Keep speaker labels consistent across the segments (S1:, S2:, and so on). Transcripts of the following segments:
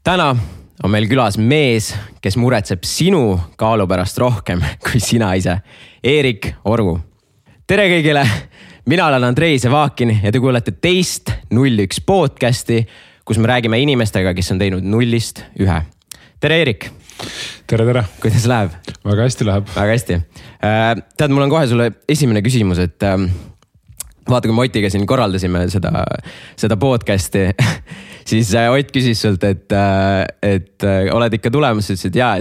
S1: Täna on meil külas mees, kes muretseb sinu kaalu pärast rohkem kui sina ise. Eerik Orgu. Tere kõigile, mina olen Andrei Sevakin ja te kuulete teist 01 podcasti, kus me räägime inimestega, kes on teinud 0-st 1. Tere Eerik.
S2: Tere.
S1: Kuidas läheb?
S2: Väga hästi läheb.
S1: Väga hästi. Tead, mul on kohe sulle esimene küsimus, et vaata, kui me Otiga siin korraldasime seda podcasti, siis Ott küsis sult, et oled ikka tulemas, ütlesid ja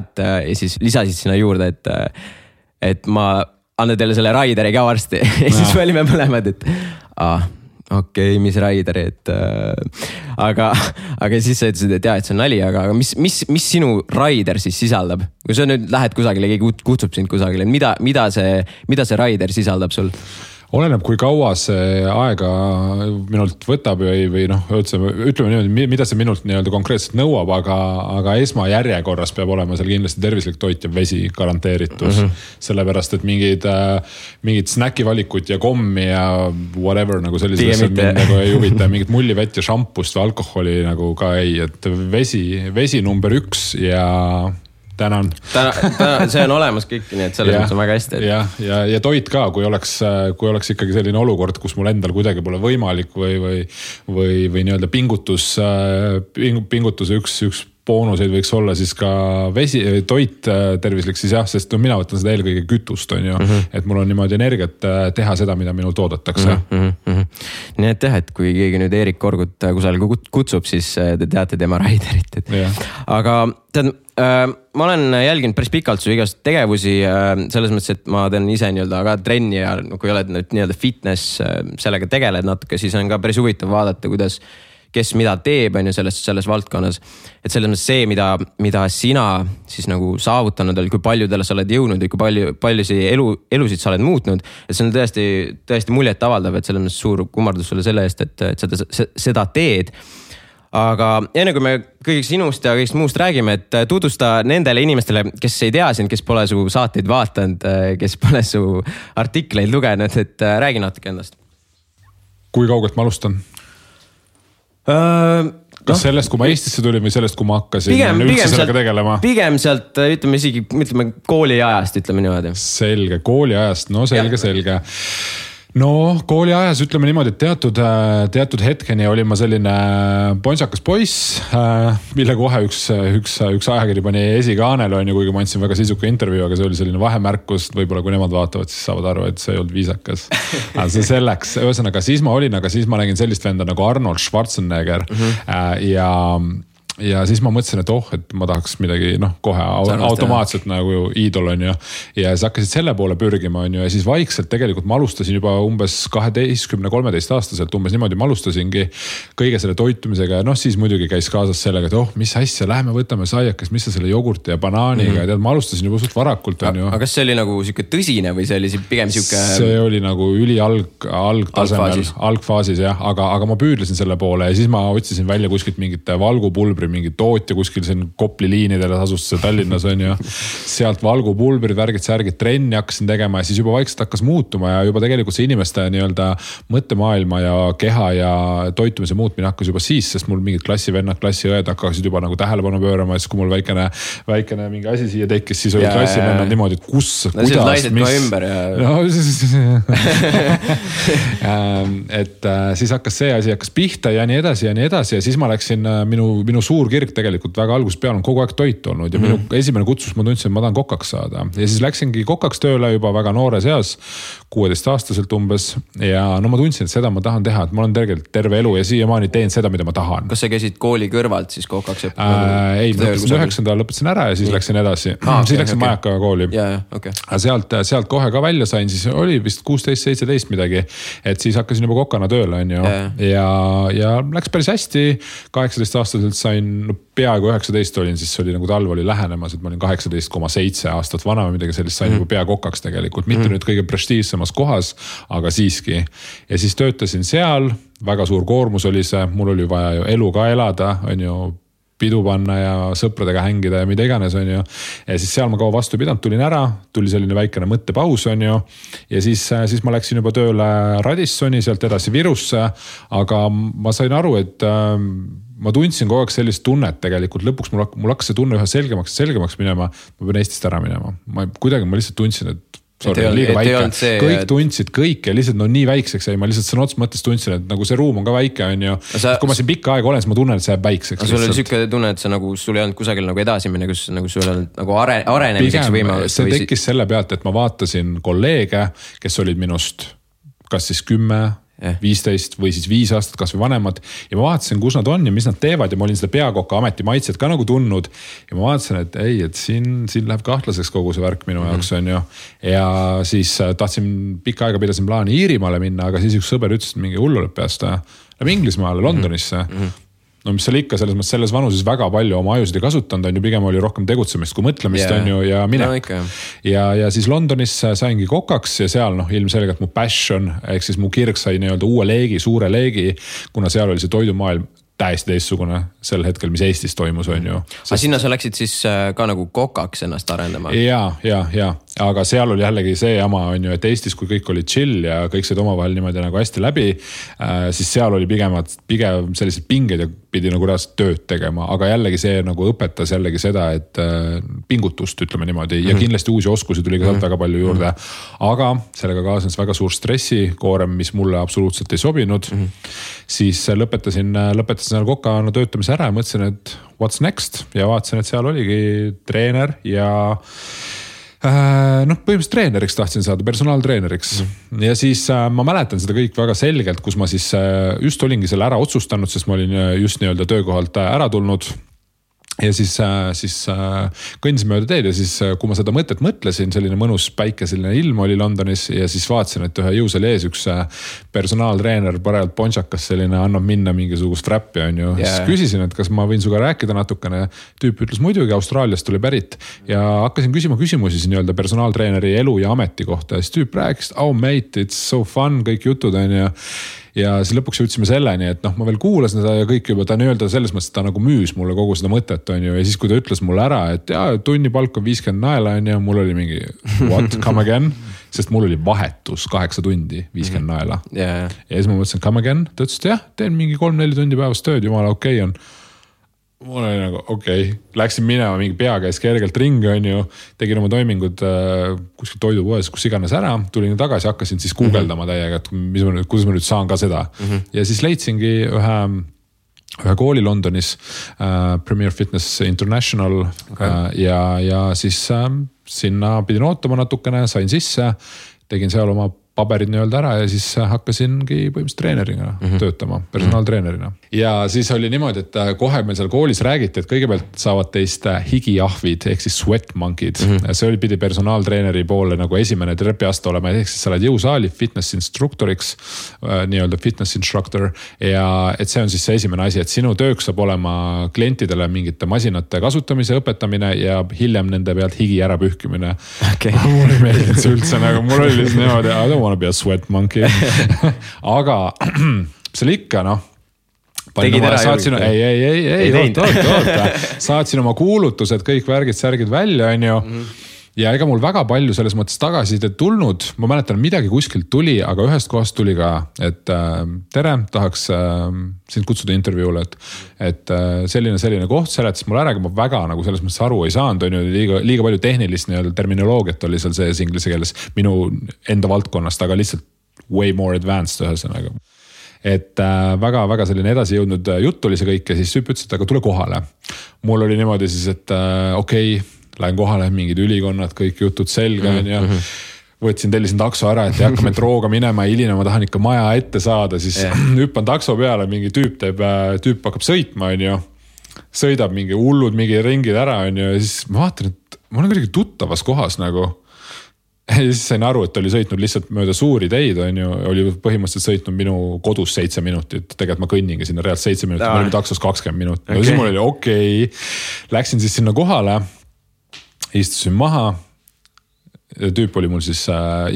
S1: siis lisasid sinna juurde, et ma annan teile selle Raideri ka varsti. Ja siis me olime mõlemad, et okei, mis Raideri, aga siis sa ütlesid, et see on nali, aga mis sinu Raider siis sisaldab? Kui sa nüüd lähed kusagile, keegi kutsub sind kusagile, mida see Raider sisaldab sul?
S2: Oleneb, kui kaua see aega minult võtab või ütleme niimoodi, mida see minult nii-öelda konkreetselt nõuab, aga esmajärjekorras peab olema seal kindlasti tervislik toit ja vesi garanteeritus. Sellepärast, et mingid snäkivalikut ja kommi ja whatever nagu sellised nagu ei huvita, mingid mullivett ja šampust või alkoholi nagu ka ei, et vesi number 1 ja tänan.
S1: See on olemas kõik, nii et selles mõttes on väga hästi.
S2: Ja toit ka, kui oleks ikkagi selline olukord, kus mul endal kuidagi pole võimalik või nii-öelda pingutuse üks boonuseid võiks olla siis ka toit tervislik, siis sest mina võtan seda eelkõige kütust, on ju, et mul on niimoodi energiat teha seda, mida minul toodetakse.
S1: Nii et et kui keegi nüüd Eerik Orgut kusagil kutsub, siis te teate tema Raiderit. Aga tead, ma olen jälginud päris pikalt su igast tegevusi selles mõttes, et ma teen ise nii-öelda ka trenni ja kui oled nii-öelda fitness sellega tegeled natuke, siis on ka päris huvitav vaadata, kes mida teeb on ju selles valdkonnas. Et selles mõttes see, mida sina siis nagu saavutanud oli, kui paljudele sa oled jõudnud või kui paljusi elusid sa oled muutnud. Et see on tõesti muljet avaldav, et selles mõttes suur kummardus sulle selle eest, et seda teed. Aga enne kui me kõigist sinust ja kõigist muust räägime, et tutvusta nendele inimestele, kes ei tea sind, kes pole su saateid vaatanud, kes pole su artikleid lugenud, et räägi natuke endast.
S2: Kui kaugelt ma alustan? Kas sellest, kui ma Eestisse tulin või sellest, kui ma hakkasin üldse sellega tegelema?
S1: Pigem sealt, ütleme kooli ajast, ütleme niimoodi.
S2: Selge, kooli ajast, selge. No kooli ajas ütleme niimoodi, et teatud hetkeni olin ma selline ponsakas poiss, mille kohe üks ajakiri pani esikaanel, kuigi ma andsin väga sisuka intervjuu, aga see oli selline vahemärkus, võib-olla kui nemad vaatavad, siis saavad aru, et see ei olnud viisakas. See selleks, ühesõnaga siis ma nägin sellist venda nagu Arnold Schwarzenegger ja siis ma mõtlesin, et ma tahaks midagi kohe automaatselt nagu iidol on ju. Ja siis hakkasid selle poole pürgima on ju. Ja siis vaikselt tegelikult ma alustasin juba umbes 12-13 aastaselt umbes niimoodi ma alustasingi kõige selle toitumisega. Ja siis muidugi käis kaasas sellega, et mis asja, lähme võtame saiakest, mis sa selle jogurti ja banaaniga. Ja ma alustasin juba suht varakult on ju.
S1: Aga kas see oli nagu siuke tõsine või see oli pigem siuke?
S2: See oli nagu üli algtasemel, algfaasis jah, aga ma püüdlesin selle poole ja siis ma otsisin välja kuskilt mingit valgupulbri mingi tootja kuskil siin Kopli liinidele asus see Tallinnas on ju. Sealt valgupulbrid, värgid, trenni hakkasin tegema ja siis juba vaikselt hakkas muutuma ja juba tegelikult see inimeste nii-öelda mõttemaailma ja keha ja toitumise muutmine hakkas juba siis, sest mul mingid klassivennad, klassiõed hakkasid juba nagu tähelepanu pöörama ja siis kui mul väikene mingi asi siia tekkis, siis olid klassivennad niimoodi, et kuidas, et siis hakkas see asi pihta ja nii edasi ja siis ma läksin minu suur kirg tegelikult väga algusest peale on kogu aeg toit olnud ja minu esimene kutsus ma tundsin, et ma tahan kokaks saada. Ja siis läksingi kokaks tööle juba väga noores eas, 16-aastaselt umbes ja ma tundsin, et seda ma tahan teha, et ma olen terve elu ja siiamaani teen seda, mida ma tahan.
S1: Kas sa käisid kooli kõrvalt siis kokaks?
S2: Ei, lõpetasin 9. lõpetasin ära ja siis läksin edasi. Siis läksin Majakaga kooli. Sealt kohe ka välja sain, siis oli vist 16-17 midagi, et siis hakkasin juba kokana tööle on ju. Ja läks päris hästi, 18-aastaselt sain peaaegu 19 olin, siis oli nagu talv oli lähenemas, et ma olin 18,7 aastat vana või midagi sellist, sain juba pea kokaks tegelikult, mitte nüüd kõige prestiivsemas kohas, aga siiski. Ja siis töötasin seal, väga suur koormus oli see, mul oli vaja ju elu ka elada, on ju, pidu panna ja sõpradega hängida ja mida iganes on ju. Ja siis seal ma kaua vastu pidanud, tulin ära, tuli selline väikene mõttepaus on ju. Ja siis ma läksin juba tööle Radissoni, sealt edasi Virusse, aga ma sain aru, et ma tundsin kogu aeg sellist tunnet tegelikult, lõpuks mul hakkas see tunne üha selgemaks minema, ma pean Eestist ära minema. Ma lihtsalt tundsin, et sorry, liiga väike. Kõik tundsid kõik ja lihtsalt nii väikseks jäi, ma lihtsalt sõna otsa mõttes tundsin, et nagu see ruum on ka väike, on ju. Kui ma siin pikka aega olen, siis ma tunnen, et see jääb väikseks.
S1: Sul oli siuke tunne, et sul ei olnud kusagil nagu edasi minna, kus nagu sul on nagu arenemiseks võimalus.
S2: See tekkis selle pealt, et ma vaatasin kolleege, kes olid minust kas siis 10, 15 või siis 5 aastat kas või vanemad ja ma vaatasin, kus nad on ja mis nad teevad ja ma olin seda peakoka ameti maitset ka nagu tundnud ja ma vaatasin, et ei, et siin läheb kahtlaseks kogu see värk minu jaoks on ju ja siis tahtsin pikka aega pidasin plaani Iirimaale minna, aga siis üks sõber ütles, et mingi hullu lõpp peast läheb Inglismaale, Londonisse no mis seal ikka selles vanuses väga palju oma ajusid ei kasutanud, on ju pigem oli rohkem tegutsemist kui mõtlemist on ju ja minek. Ja siis Londonis saingi kokaks ja seal ilmselgelt mu passion, ehk siis mu kirg sai nii-öelda uue leegi, suure leegi, kuna seal oli see toidumaailm täiesti teistsugune sel hetkel, mis Eestis toimus, on ju.
S1: Aga sinna sa läksid siis ka nagu kokaks ennast arendama?
S2: Ja. Aga seal oli jällegi see jama, on ju, et Eestis, kui kõik oli chill ja kõik said omavahel niimoodi nagu hästi läbi, siis seal oli pigem sellised pinged ja pidi nagu reaalselt tööd tegema, aga jällegi see nagu õpetas jällegi seda, et pingutust ütleme niimoodi ja kindlasti uusi oskusi tuli ka väga palju juurde, aga sellega kaasnes väga suur stressikoorem, mis mulle absoluutselt ei sobinud, siis lõpetasin seal kokana töötamise ära ja mõtlesin, et what's next ja vaatasin, et seal oligi treener ja põhimõtteliselt treeneriks tahtsin saada, personaaltreeneriks ja siis ma mäletan seda kõik väga selgelt, kus ma siis just olingi selle ära otsustanud, sest ma olin just nii-öelda töökohalt ära tulnud ja siis kõndisin mööda teed ja siis kui ma seda mõtet mõtlesin, selline mõnus päikeseline ilm oli Londonis ja siis vaatasin, et ühe jõusaali ees üks personaaltreener parajalt ponšakas selline annab minna mingisugust räppi on ju. Siis küsisin, et kas ma võin suga rääkida natukene. Tüüp ütles muidugi, Austraaliast tuli pärit ja hakkasin küsima küsimusi siin nii-öelda personaaltreeneri elu ja ameti kohta. Siis tüüp rääkis, oh mate, it's so fun, kõik jutud on ju. Ja siis lõpuks jõudsime selleni, et ma veel kuulasin seda ja kõik juba ta nii-öelda selles mõttes ta nagu müüs mulle kogu seda mõtet on ju. Ja siis kui ta ütles mulle ära, et tunni palk on 50 naela on ju, mul oli mingi what, come again? Sest mul oli vahetus 8 tundi, 50 naela. Ja siis ma mõtlesin, come again? Ta ütles, et jah, teen mingi 3-4 tundi päevast tööd, jumala okei on. Mul oli nagu okei, läksin minema mingi pea käis kergelt ringi on ju, tegin oma toimingud kuskil toidupoes, kus iganes ära, tulin tagasi, hakkasin siis guugeldama täiega, et kuidas ma nüüd saan ka seda. Ja siis leidsingi ühe kooli Londonis, Premier Fitness International ja siis sinna pidin ootama natukene, sain sisse, tegin seal oma paberid nii-öelda ära ja siis hakkasingi põhimõtteliselt treenerina töötama, personaaltreenerina. Ja siis oli niimoodi, et kohe meil seal koolis räägiti, et kõigepealt saavad teist higijahvid ehk siis sweat monkid. See oli pidi personaaltreeneri poole nagu esimene trepiaste olema, ehk siis sa oled jõusaali fitness instruktoriks, nii-öelda fitness instructor ja et see on siis see esimene asi, et sinu tööks saab olema klientidele mingite masinate kasutamise õpetamine ja hiljem nende pealt higi ära pühkimine. Mul ei meeldinud see üldse, nagu mul oli lihtsalt niimoodi, I don't wanna be a sweat monkey. Aga see oli ikka saatsin oma kuulutused, kõik särgid välja on ju. Ja ega mul väga palju selles mõttes tagasisidet tulnud, ma mäletan midagi kuskilt tuli, aga ühest kohast tuli ka, et tere, tahaks sind kutsuda intervjuule, et selline koht seletas mul ära, aga ma väga nagu selles mõttes aru ei saanud, on ju liiga palju tehnilist terminoloogiat oli seal sees inglise keeles minu enda valdkonnast, aga lihtsalt way more advanced ühesõnaga. Et väga selline edasi jõudnud jutt oli see kõik ja siis ütles, et aga tule kohale. Mul oli niimoodi siis, et okei, lähen kohale, mingid ülikonnad, kõik jutud selga ja võtsin, tellisin takso ära, et ei hakka metrooga minema ja hiline, ma tahan ikka maja ette saada, siis hüppan takso peale, mingi tüüp hakkab sõitma, on ju. Sõidab mingi hullud, mingi ringid ära, on ju, ja siis ma vaatan, et ma olen kuidagi tuttavas kohas nagu. Ja siis sain aru, et oli sõitnud lihtsalt mööda suuri teid, on ju, oli põhimõtteliselt sõitnud minu kodus 7 minutit, tegelikult ma kõnningi sinna realt 7 minutit, ma olin taksos 20 minutit. Ja siis mul oli okei, läksin siis sinna kohale, istusin maha, tüüp oli mul siis,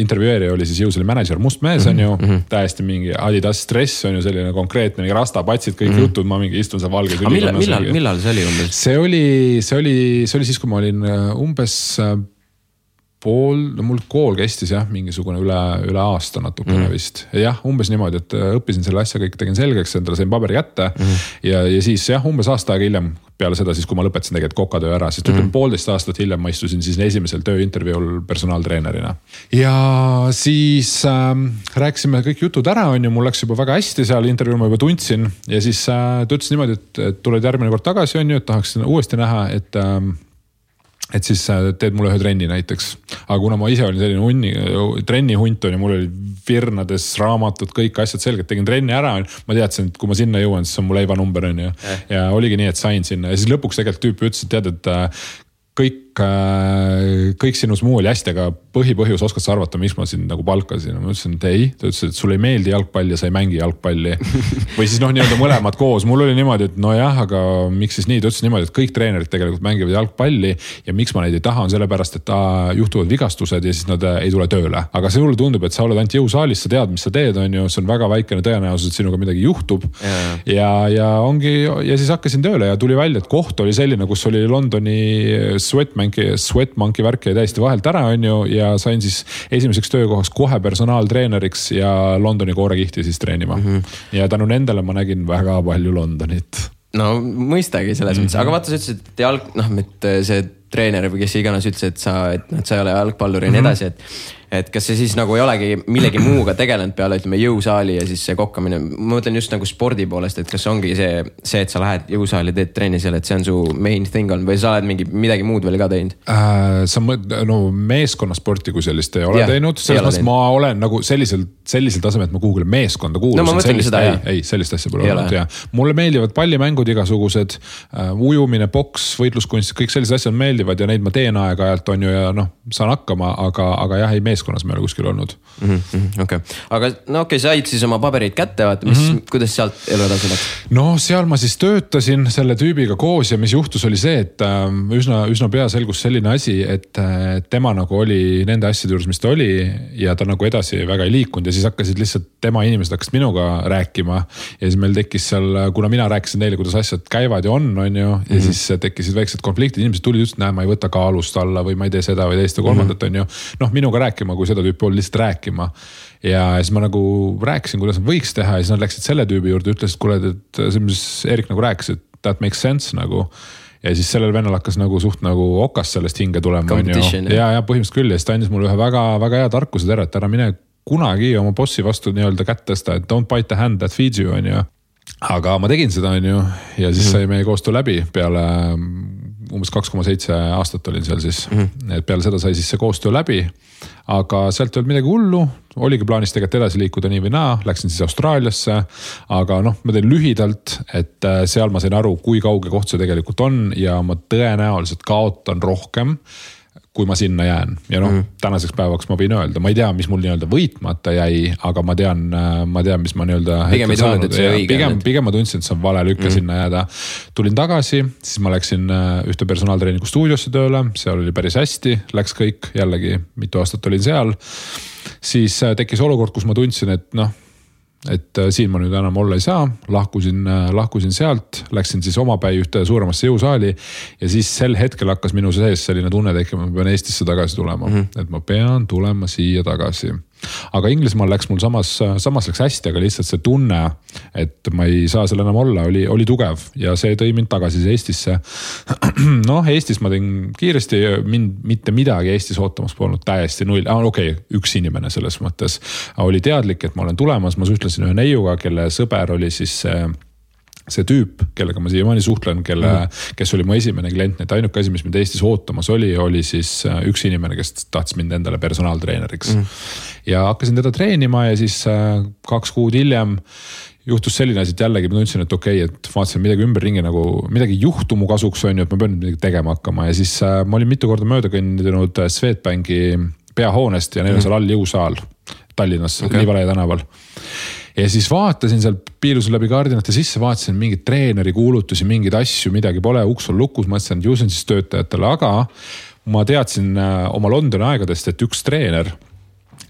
S2: intervjueerija oli siis jõusaali manager, must mees on ju, täiesti mingi Adidas stress on ju selline konkreetne, mingi rastapatsid, kõik jutud, ma mingi istun seal valges ülikonnas.
S1: Millal see oli umbes?
S2: See oli siis, kui ma olin umbes mul kool kestis jah, mingisugune üle aasta natukene vist. Jah, umbes niimoodi, et õppisin selle asja kõik, tegin selgeks, endale sain paberi kätte ja siis jah, umbes aasta aega hiljem peale seda siis, kui ma lõpetasin tegelikult kokatöö ära, siis 1,5 aastat hiljem ma istusin siis esimesel tööintervjuul personaaltreenerina. Ja siis rääkisime kõik jutud ära, mul läks juba väga hästi seal, intervjuul ma juba tundsin ja siis ta ütles niimoodi, et tuled järgmine kord tagasi, et tahaksin uuesti näha, et siis teed mulle ühe trenni näiteks. Aga kuna ma ise olin selline trennihunt ja mul oli virnades raamatud, kõik asjad selgelt, tegin trenni ära, ma teadsin, et kui ma sinna jõuan, siis on mu leivanumber ja oligi nii, et sain sinna ja siis lõpuks tegelikult tüüp ütles, et tead, et kõik sinus muu oli hästi, aga põhipõhjus oskad sa arvata, miks ma sind nagu palkasin. Ma ütlesin, et ei, ta ütles, et sulle ei meeldi jalgpall ja sa ei mängi jalgpalli. Või siis nii-öelda mõlemad koos. Mul oli niimoodi, et no jah, aga miks siis nii? Ta ütles niimoodi, et kõik treenerid tegelikult mängivad jalgpalli ja miks ma neid ei taha on sellepärast, et juhtuvad vigastused ja siis nad ei tule tööle. Aga see mulle tundub, et sa oled ainult jõusaalis, sa tead, mis sa teed, on ju, see on väga väikene tõenäosus, et sinuga midagi juhtub. Ja siis hakkasin tööle ja tuli välja, et koht oli selline, kus oli Londoni Sweatmonkey värk jäi täiesti vahelt ära, on ju, ja sain siis esimeseks töökohaks kohe personaaltreeneriks ja Londoni koorekihti siis treenima. Ja tänu nendele ma nägin väga palju Londonit.
S1: No mõistagi selles mõttes, aga vaata, sa ütlesid, et see treener või kes iganes ütles, et sa ei ole jalgpallur ja nii edasi, et kas see siis nagu ei olegi millegi muuga tegelenud peale, ütleme, jõusaali ja siis see kokkamine. Ma mõtlen just nagu spordi poolest, et kas ongi see, et sa lähed jõusaali, teed trenni seal, et see on su main thing on või sa oled midagi muud veel ka teinud?
S2: Meeskonnasporti kui sellist ei ole teinud. Selles mõttes ma olen nagu sellisel tasemel, et ma kuhugile meeskonda kuulusin.
S1: No ma mõtlengi seda, jah.
S2: Ei, sellist asja pole olnud, jah. Mulle meeldivad pallimängud igasugused, ujumine, boks, võitluskunst, kõik sellised asjad meeldivad ja neid ma teen aeg-ajalt on ju ja saan hakkama, aga jah, ei meeskonnas me ei ole kuskil olnud.
S1: Okay. Aga said siis oma paberid kätte, kuidas sealt elu edasi läks?
S2: No seal ma siis töötasin selle tüübiga koos ja mis juhtus oli see, et üsna pea selgus selline asi, et tema nagu oli nende asjade juures, mis ta oli ja ta nagu edasi väga ei liikunud ja siis hakkasid lihtsalt tema inimesed hakkasid minuga rääkima ja siis meil tekkis seal, kuna mina rääkisin neile, kuidas asjad käivad ja on ju, ja siis tekkisid väiksed konfliktid, inimesed tulid just, ma ei võta kaalust alla või ma ei tee seda või teist ja kolmandat on ju, minuga rääkima, kui seda tüüpi oli lihtsalt rääkima ja siis ma nagu rääkisin, kuidas nad võiks teha ja siis nad läksid selle tüübi juurde, ütlesid, kuule, et see, mis Erik nagu rääkis, et that makes sense nagu ja siis sellel vennal hakkas nagu suht nagu okas sellest hinge tulema ja põhimõtteliselt küll ja siis ta andis mulle ühe väga, väga hea tarkuse tere, et ära mine kunagi oma bossi vastu nii-öelda kätt tõsta, et don't bite the hand that feeds you on ju. Aga ma tegin seda on ju ja siis sai meie koostöö läbi peale umbes 2,7 aastat olin seal siis, et peale seda sai siis see koostöö läbi, aga sealt ei olnud midagi hullu, oligi plaanis tegelikult edasi liikuda nii või naa, läksin siis Austraaliasse, aga ma teen lühidalt, et seal ma sain aru, kui kauge koht see tegelikult on ja ma tõenäoliselt kaotan rohkem, kui ma sinna jään ja tänaseks päevaks ma võin öelda, ma ei tea, mis mul nii-öelda võitmata jäi, aga ma tean, mis ma nii-öelda
S1: pigem ei tundnud, et see õige.
S2: Pigem ma tundsin, et see on vale lükka sinna jääda. Tulin tagasi, siis ma läksin ühte personaaltreeniku stuudiosse tööle, seal oli päris hästi, läks kõik, jällegi mitu aastat olin seal. Siis tekkis olukord, kus ma tundsin, et siin ma nüüd enam olla ei saa, lahkusin sealt, läksin siis omapäi ühte suuremasse jõusaali ja siis sel hetkel hakkas minu sees selline tunne tekkima, ma pean Eestisse tagasi tulema, et ma pean tulema siia tagasi. Aga Inglismaal läks mul samas läks hästi, aga lihtsalt see tunne, et ma ei saa seal enam olla, oli tugev ja see tõi mind tagasi Eestisse. Eestis ma tegin kiiresti, mitte midagi Eestis ootamas polnud täiesti null. Üks inimene selles mõttes oli teadlik, et ma olen tulemas, ma suhtlesin ühe neiuga, kelle sõber oli siis see tüüp, kellega ma siiamaani suhtlen, kes oli mu esimene klient, et ainuke asi, mis mind Eestis ootamas oli siis üks inimene, kes tahtis mind endale personaaltreeneriks. Ja hakkasin teda treenima ja siis 2 kuud hiljem juhtus selline asi, et jällegi ma tundsin, et et vaatasin midagi ümberringi nagu midagi juhtu mu kasuks on ju, et ma pean midagi tegema hakkama ja siis ma olin mitu korda mööda kõndinud Swedbanki peahoonest ja neil on seal all jõusaal Tallinnas, Liivalaia tänaval. Ja siis vaatasin seal, piilusin läbi kaardinate sisse, vaatasin mingid treeneri kuulutusi, mingeid asju, midagi pole, uks on lukus, mõtlesin, et ju see on siis töötajatele, aga ma teadsin oma Londoni aegadest, et üks treener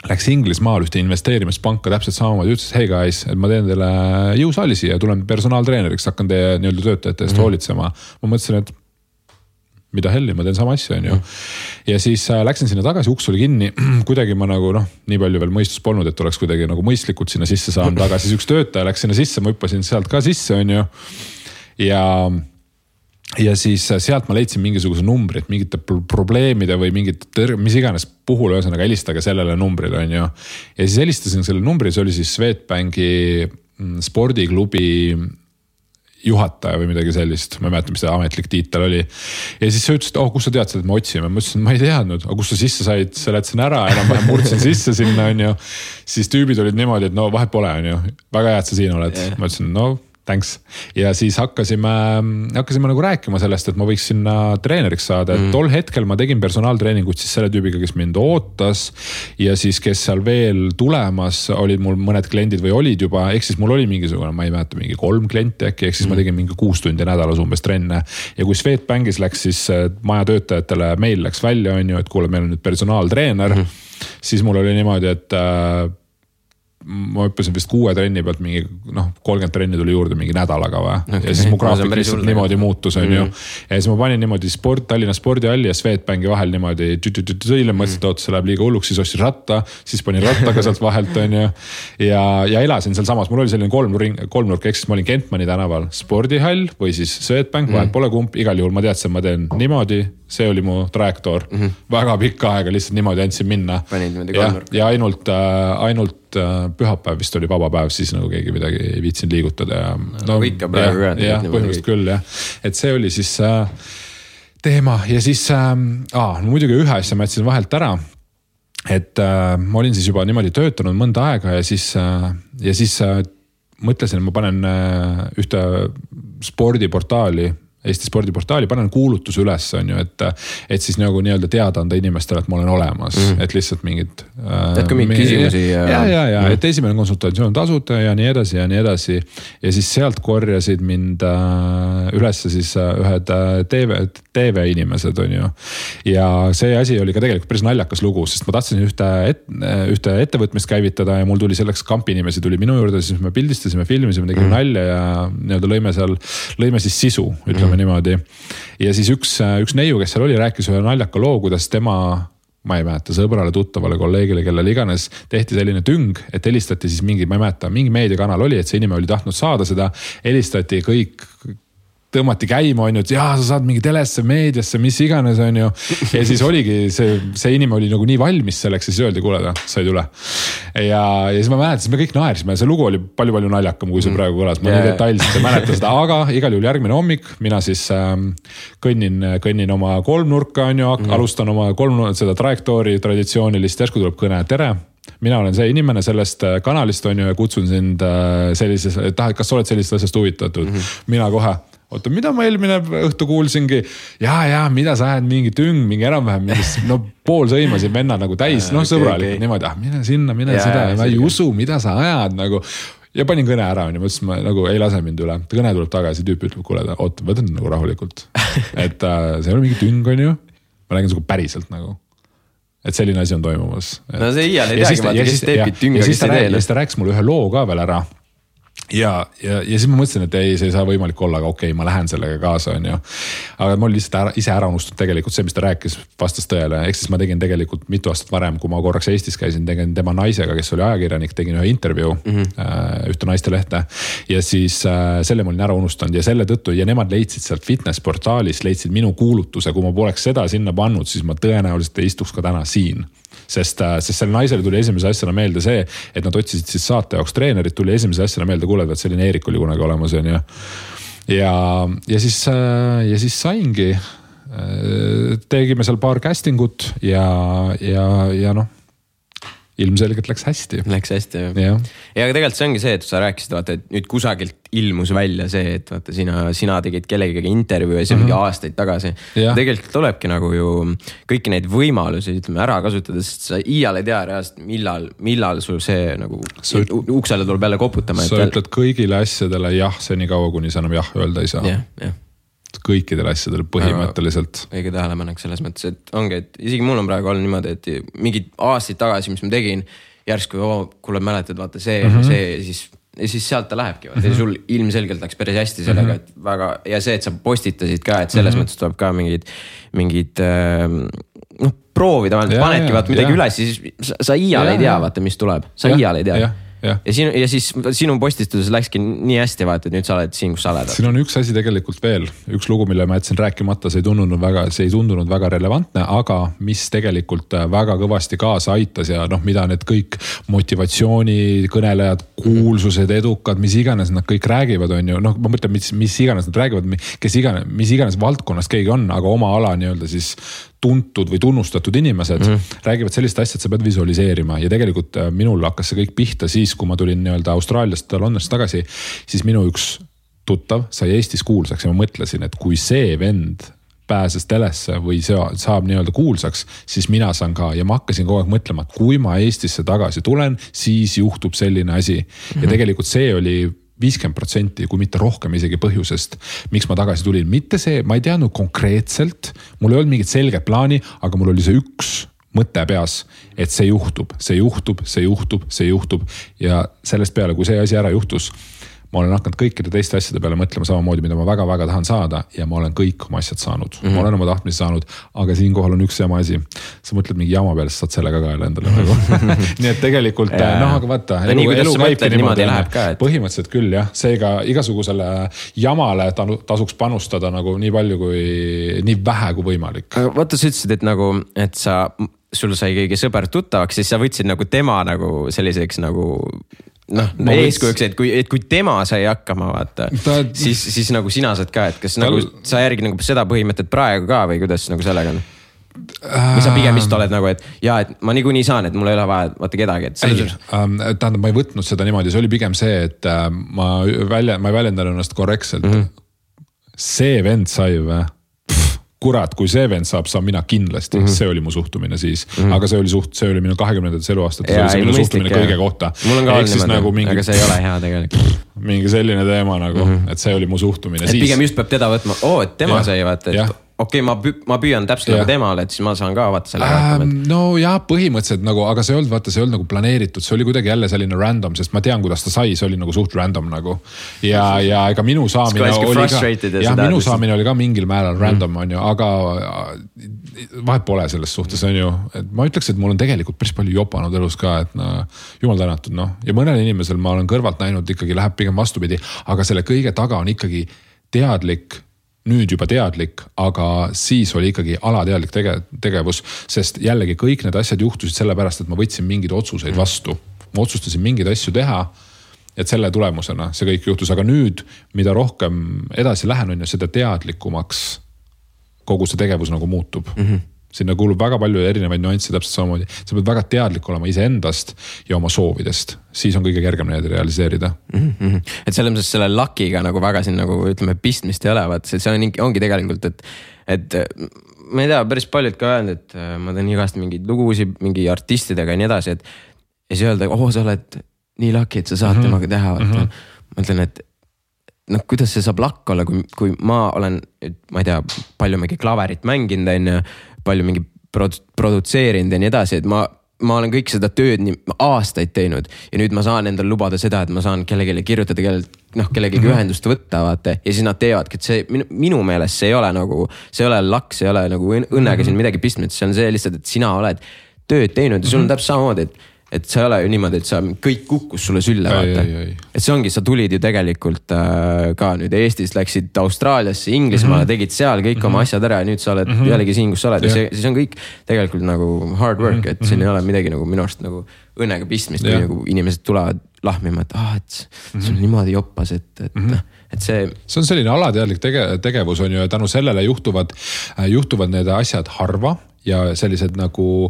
S2: läks Inglismaal ühte investeerimispanka täpselt samamoodi, ütles, hey guys, et ma teen teile jõusaali siia ja tulen personaaltreeneriks, hakkan teie nii-öelda töötajate eest hoolitsema. Ma mõtlesin, et mida helli, ma teen sama asja, on ju. Ja siis läksin sinna tagasi, uks oli kinni, kuidagi ma nagu nii palju veel mõistus polnud, et oleks kuidagi nagu mõistlikult sinna sisse saanud, aga siis üks töötaja läks sinna sisse, ma hüppasin sealt ka sisse, on ju. Ja siis sealt ma leidsin mingisuguse numbri, et mingite probleemide või mingit, mis iganes puhul, ühesõnaga helistage sellele numbrile, on ju. Ja siis helistasin selle numbri, see oli siis Swedbanki spordiklubi juhataja või midagi sellist, ma ei mäleta, mis see ametlik tiitel oli. Ja siis sa ütlesid, kus sa tead seda, et me otsime? Ma ütlesin, ma ei teadnud, aga kus sa sisse said, seletasin ära, enam-vähem murdsin sisse sinna, on ju. Siis tüübid olid niimoodi, et no vahet pole, on ju. Väga hea, et sa siin oled. Ma ütlesin, no thanks. Ja siis hakkasime nagu rääkima sellest, et ma võiks sinna treeneriks saada, et tol hetkel ma tegin personaaltreeningut siis selle tüübiga, kes mind ootas ja siis, kes seal veel tulemas olid mul mõned kliendid või olid juba, ehk siis mul oli mingisugune, ma ei mäleta, mingi 3 klienti äkki, ehk siis ma tegin mingi 6 tundi nädalas umbes trenne ja kui Swedbankis läks siis maja töötajatele meil läks välja, on ju, et kuule, meil on nüüd personaaltreener, siis mul oli niimoodi, et ma hüppasin vist 6 trenni pealt mingi 30 trenni tuli juurde mingi nädalaga või. Okay. Ja siis mu graafik lihtsalt niimoodi muutus, on ju. Ja siis ma panin niimoodi Tallinna spordihalli ja Swedbanki vahel niimoodi mõtlesin, et see läheb liiga hulluks, siis ostis ratta, siis panin rattaga sealt vahelt, on ju. Ja elasin seal samas, mul oli selline kolmnurk, ehk siis ma olin Kentmani tänaval spordihall või siis Swedbank, vahel pole kumb, igal juhul ma teadsin, ma teen niimoodi, see oli mu trajektoor. Väga pikka aega lihtsalt niimoodi andsin minna. Ja ainult pühapäev vist oli vaba päev, siis nagu keegi midagi ei viitsin liigutada ja
S1: ikka praegu
S2: jah, põhimõtteliselt küll jah, et see oli siis teema ja siis muidugi ühe asja ma jätsin vahelt ära, et ma olin siis juba niimoodi töötanud mõnda aega ja siis mõtlesin, et ma panen ühte spordiportaali Eesti spordiportaali, panen kuulutuse üles, on ju, et siis nagu nii-öelda teada anda inimestele, et ma olen olemas, et lihtsalt mingid
S1: tead ka mingeid küsimusi
S2: ja et esimene konsultatsioon tasuta ja nii edasi ja nii edasi ja siis sealt korjasid mind üles siis ühed TV inimesed, on ju ja see asi oli ka tegelikult päris naljakas lugu, sest ma tahtsin ühte ettevõtmist käivitada ja mul tuli selleks kampi inimesi tuli minu juurde, siis me pildistasime, filmisime, tegime nalja ja nii-öelda lõime siis sisu, ütleme niimoodi. Ja siis üks neiu, kes seal oli, rääkis ühe naljaka loo, kuidas tema, ma ei mäleta, sõbrale, tuttavale, kolleegile, kellele iganes, tehti selline tüng, et helistati siis mingi, ma ei mäleta, mingi meediakanal oli, et see inimene oli tahtnud saada seda, helistati kõik tõmmati käima, on ju, et jaa, sa saad mingi telesse, meediasse, mis iganes, on ju. Ja siis oligi, see inimene oli nagu nii valmis selleks ja siis öeldi, kuule, sa ei tule. Ja siis ma mäletan, me kõik naersime, see lugu oli palju naljakam, kui see praegu kõlas. Ma nii detailselt ei mäleta seda, aga igal juhul järgmine hommik, mina siis kõnnin oma kolmnurka, on ju, alustan oma seda trajektoori traditsioonilist, järsku tuleb kõne, tere. Mina olen see inimene sellest kanalist, on ju, ja kutsun sind sellises, kas sa oled sellisest asjast huvitatud? Mina kohe. Oota, mida ma eelmine õhtu kuulsingi? Ja, mida sa ajad mingi tüng, mingi enam-vähem, pool sõimasid venna nagu täis, sõbralikult niimoodi, mine sinna, mine seda, ma ei usu, mida sa ajad nagu. Ja panin kõne ära, on ju, mõtlesin, ma nagu ei lase mind üle. Kõne tuleb tagasi, tüüp ütleb, kuule, oota, võtan nagu rahulikult. Et see oli mingi tüng, on ju. Ma räägin päriselt nagu. Et selline asi on toimumas.
S1: No see iial ei teagi, vaata, kes teebki tünga, kes ei tee.
S2: Ja siis ta rääkis mulle ühe loo ka veel ära. Ja siis ma mõtlesin, et ei, see ei saa võimalik olla, aga okei, ma lähen sellega kaasa, on ju. Aga ma olin lihtsalt ise ära unustanud tegelikult see, mis ta rääkis vastas tõele. Ehk siis ma tegin tegelikult mitu aastat varem, kui ma korraks Eestis käisin, tegin tema naisega, kes oli ajakirjanik, tegin ühe intervjuu, ühte naistelehte. Ja siis selle ma olin ära unustanud ja selle tõttu, ja nemad leidsid sealt fitnessportaalis, leidsid minu kuulutuse, kui ma poleks seda sinna pannud, siis ma tõenäoliselt ei istuks ka täna siin. Sest selle naisele tuli esimese asjana meelde see, et nad otsisid siis saate jaoks treenerit, tuli esimese asjana meelde, kuule, et selline Eerik oli kunagi olemas, on ju. Ja siis saingi, tegime seal paar castingut ja ilmselgelt läks hästi.
S1: Läks hästi, jah. Ja aga tegelikult see ongi see, et sa rääkisid, vaata, et nüüd kusagilt ilmus välja see, et vaata, sina tegid kellegagi intervjuu ja see mingi aastaid tagasi. Tegelikult tulebki nagu ju kõiki neid võimalusi, ütleme, ära kasutada, sest sa iial ei tea reaalselt, millal sul see nagu uksele tuleb jälle koputama.
S2: Sa ütled kõigile asjadele jah, see nii kaua, kuni sa enam jah öelda ei saa.
S1: Jah.
S2: Kõikidele asjadele põhimõtteliselt.
S1: Õige tähelepanek selles mõttes, et ongi, et isegi mul on praegu olnud niimoodi, et mingid aastaid tagasi, mis ma tegin, järsku, kuule mäletad, vaata see, siis ja siis sealt ta lähebki. Ja sul ilmselgelt läks päris hästi sellega, et väga, ja see, et sa postitasid ka, et selles mõttes tuleb ka mingid proovida, panedki vaata midagi üles, siis sa iial ei tea, vaata, mis tuleb. Sa iial ei tea. Ja siis sinu postistuses läkski nii hästi vaata, et nüüd sa oled siin, kus sa oled.
S2: Siin on üks asi tegelikult veel, üks lugu, mille ma jätsin rääkimata, see ei tundunud väga relevantne, aga mis tegelikult väga kõvasti kaasa aitas ja mida need kõik motivatsioonikõnelejad, kuulsused, edukad, mis iganes nad kõik räägivad, on ju, ma mõtlen, mis iganes nad räägivad, mis iganes valdkonnas keegi on, aga oma ala nii-öelda siis tuntud või tunnustatud inimesed räägivad sellist asja, et sa pead visualiseerima ja tegelikult minul hakkas see kõik pihta siis, kui ma tulin nii-öelda Austraaliast Londonist tagasi, siis minu üks tuttav sai Eestis kuulsaks ja ma mõtlesin, et kui see vend pääses telesse või saab nii-öelda kuulsaks, siis mina saan ka ja ma hakkasin kogu aeg mõtlema, et kui ma Eestisse tagasi tulen, siis juhtub selline asi ja tegelikult see oli 50%, kui mitte rohkem isegi põhjusest, miks ma tagasi tulin. Mitte see, ma ei teadnud konkreetselt, mul ei olnud mingit selget plaani, aga mul oli see üks mõte peas, et see juhtub ja sellest peale, kui see asi ära juhtus, ma olen hakanud kõikide teiste asjade peale mõtlema samamoodi, mida ma väga-väga tahan saada ja ma olen kõik oma asjad saanud. Ma olen oma tahtmisi saanud, aga siinkohal on üks jama asi. Sa mõtled mingi jama peale, sa saad sellega ka endale nagu. Nii et tegelikult, aga vaata, elu käibki niimoodi. Põhimõtteliselt küll, jah. Seega igasugusele jamale tasuks panustada nagu nii palju kui, nii vähe kui võimalik.
S1: Aga vaata, sa ütlesid, et nagu, et sul sai keegi sõber tuttavaks, siis sa võtsid nagu tema nagu selliseks nagu eeskujuks, et kui tema sai hakkama, vaata, siis nagu sina saad ka, et kas nagu sa järgi nagu seda põhimõtet praegu ka või kuidas nagu sellega on? Või sa pigem vist oled nagu, et et ma niikuinii saan, et mul ei ole vaja vaata kedagi.
S2: Tähendab, ma ei võtnud seda niimoodi, see oli pigem see, et ma ei väljendan ennast korrektselt. See vend sai või? Kurat, kui see vend saab mina kindlasti, see oli mu suhtumine siis, aga see oli minu 20. eluaastat, see oli minu suhtumine kõige kohta.
S1: Mul on ka olnud, aga see ei ole hea tegelikult.
S2: Mingi selline teema nagu, et see oli mu suhtumine.
S1: Et pigem just peab teda võtma, et tema sai vaata, et okei, ma püüan täpselt nagu temale, et siis ma saan ka vaata selle hakkama.
S2: No jah, põhimõtteliselt nagu, aga see ei olnud nagu planeeritud, see oli kuidagi jälle selline random, sest ma tean, kuidas ta sai, see oli nagu suht random nagu. Ja ega minu saamine oli ka mingil määral random, on ju, aga vahet pole selles suhtes, on ju. Ma ütleks, et mul on tegelikult päris palju jopanud elus ka, et jumal tänatud, ja mõnel inimesel ma olen kõrvalt näinud, ikkagi läheb pigem vastupidi, aga selle kõige taga on ikkagi teadlik, nüüd juba teadlik, aga siis oli ikkagi alateadlik tegevus, sest jällegi kõik need asjad juhtusid sellepärast, et ma võtsin mingeid otsuseid vastu. Ma otsustasin mingeid asju teha, et selle tulemusena see kõik juhtus, aga nüüd, mida rohkem edasi lähen, on ju seda teadlikumaks kogu see tegevus nagu muutub. Sinna kuulub väga palju erinevaid nüansse täpselt samamoodi. Sa pead väga teadlik olema iseendast ja oma soovidest. Siis on kõige kergem neid realiseerida.
S1: Et selles mõttes selle lakiga nagu väga siin nagu ütleme pistmist ei ole, vaat see ongi tegelikult, et ma ei tea, päris paljud ka öelnud, et ma teen igast mingeid lugusi, mingi artistidega ja nii edasi, et ja siis öelda, sa oled nii laki, et sa saad temaga teha. Ma ütlen, et kuidas see saab lakk olla, kui ma olen, ma ei tea, palju mingi klaverit mänginud, on palju mingi produtseerinud ja nii edasi, et ma olen kõik seda tööd nii aastaid teinud ja nüüd ma saan endal lubada seda, et ma saan kellelegi kirjutada, kellelegi ühendust võtta, vaata, ja siis nad teevadki, et see minu meelest see ei ole nagu, see ei ole lakk, see ei ole nagu õnnega siin midagi pistmist, see on see lihtsalt, et sina oled tööd teinud ja sul on täpselt samamoodi, et see ei ole ju niimoodi, et sa kõik kukkus sulle sülle, vaata. Et see ongi, sa tulid ju tegelikult ka nüüd Eestis, läksid Austraaliasse, Inglismaale, tegid seal kõik oma asjad ära ja nüüd sa oled jällegi siin, kus sa oled. Ja siis on kõik tegelikult nagu hard work, et siin ei ole midagi nagu minu arust nagu õnnega pistmist, kui nagu inimesed tulevad lahmima, et see on niimoodi joppas, et see
S2: on selline alateadlik tegevus on ju, tänu sellele juhtuvad need asjad harva ja sellised nagu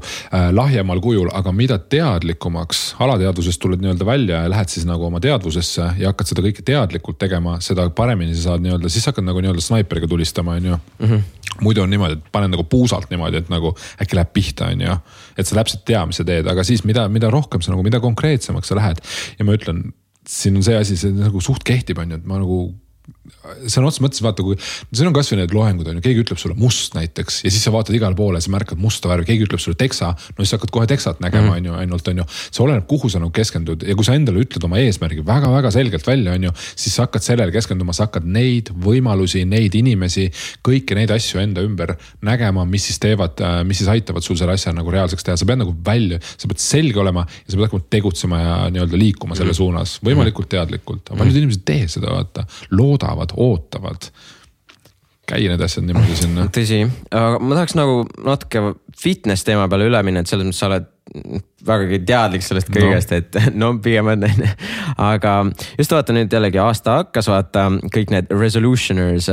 S2: lahjemal kujul, aga mida teadlikumaks alateadvusest tuled nii-öelda välja ja lähed siis nagu oma teadvusesse ja hakkad seda kõike teadlikult tegema, seda paremini sa saad nii-öelda, siis hakkad nagu nii-öelda snaiperiga tulistama, on ju. Muidu on niimoodi, et panen nagu puusalt niimoodi, et nagu äkki läheb pihta, on ju. Et sa täpselt tea, mis sa teed, aga siis mida rohkem sa nagu, mida konkreetsemaks sa lähed. Ja ma ütlen, siin on see asi, see nagu suht kehtib, on ju, et ma nagu sõna otseses mõttes vaata, kui see on kasvõi need loengud on ju, keegi ütleb sulle must näiteks ja siis sa vaatad igale poole ja sa märkad musta värvi, keegi ütleb sulle teksa, no siis hakkad kohe teksat nägema on ju, ainult on ju, see oleneb, kuhu sa nagu keskendud ja kui sa endale ütled oma eesmärgi väga-väga selgelt välja on ju, siis sa hakkad sellele keskenduma, sa hakkad neid võimalusi, neid inimesi, kõiki neid asju enda ümber nägema, mis siis teevad, mis siis aitavad sul selle asja nagu reaalseks teha, sa pead nagu välja, sa pead selge olema ja sa pead hakkama tegutsema ja nii-öelda liikuma selle suunas, võimalikult teadlikult, aga paljud inimesed tee seda, vaata, loodavad, ootavad, käi need asjad niimoodi sinna.
S1: Tõsi, aga ma tahaks nagu natuke fitness teema peale üle minna, et selles mõttes sa oled vägagi teadlik sellest kõigest, et no pigem on, aga just vaata nüüd jällegi aasta hakkas, vaata kõik need resolutioners,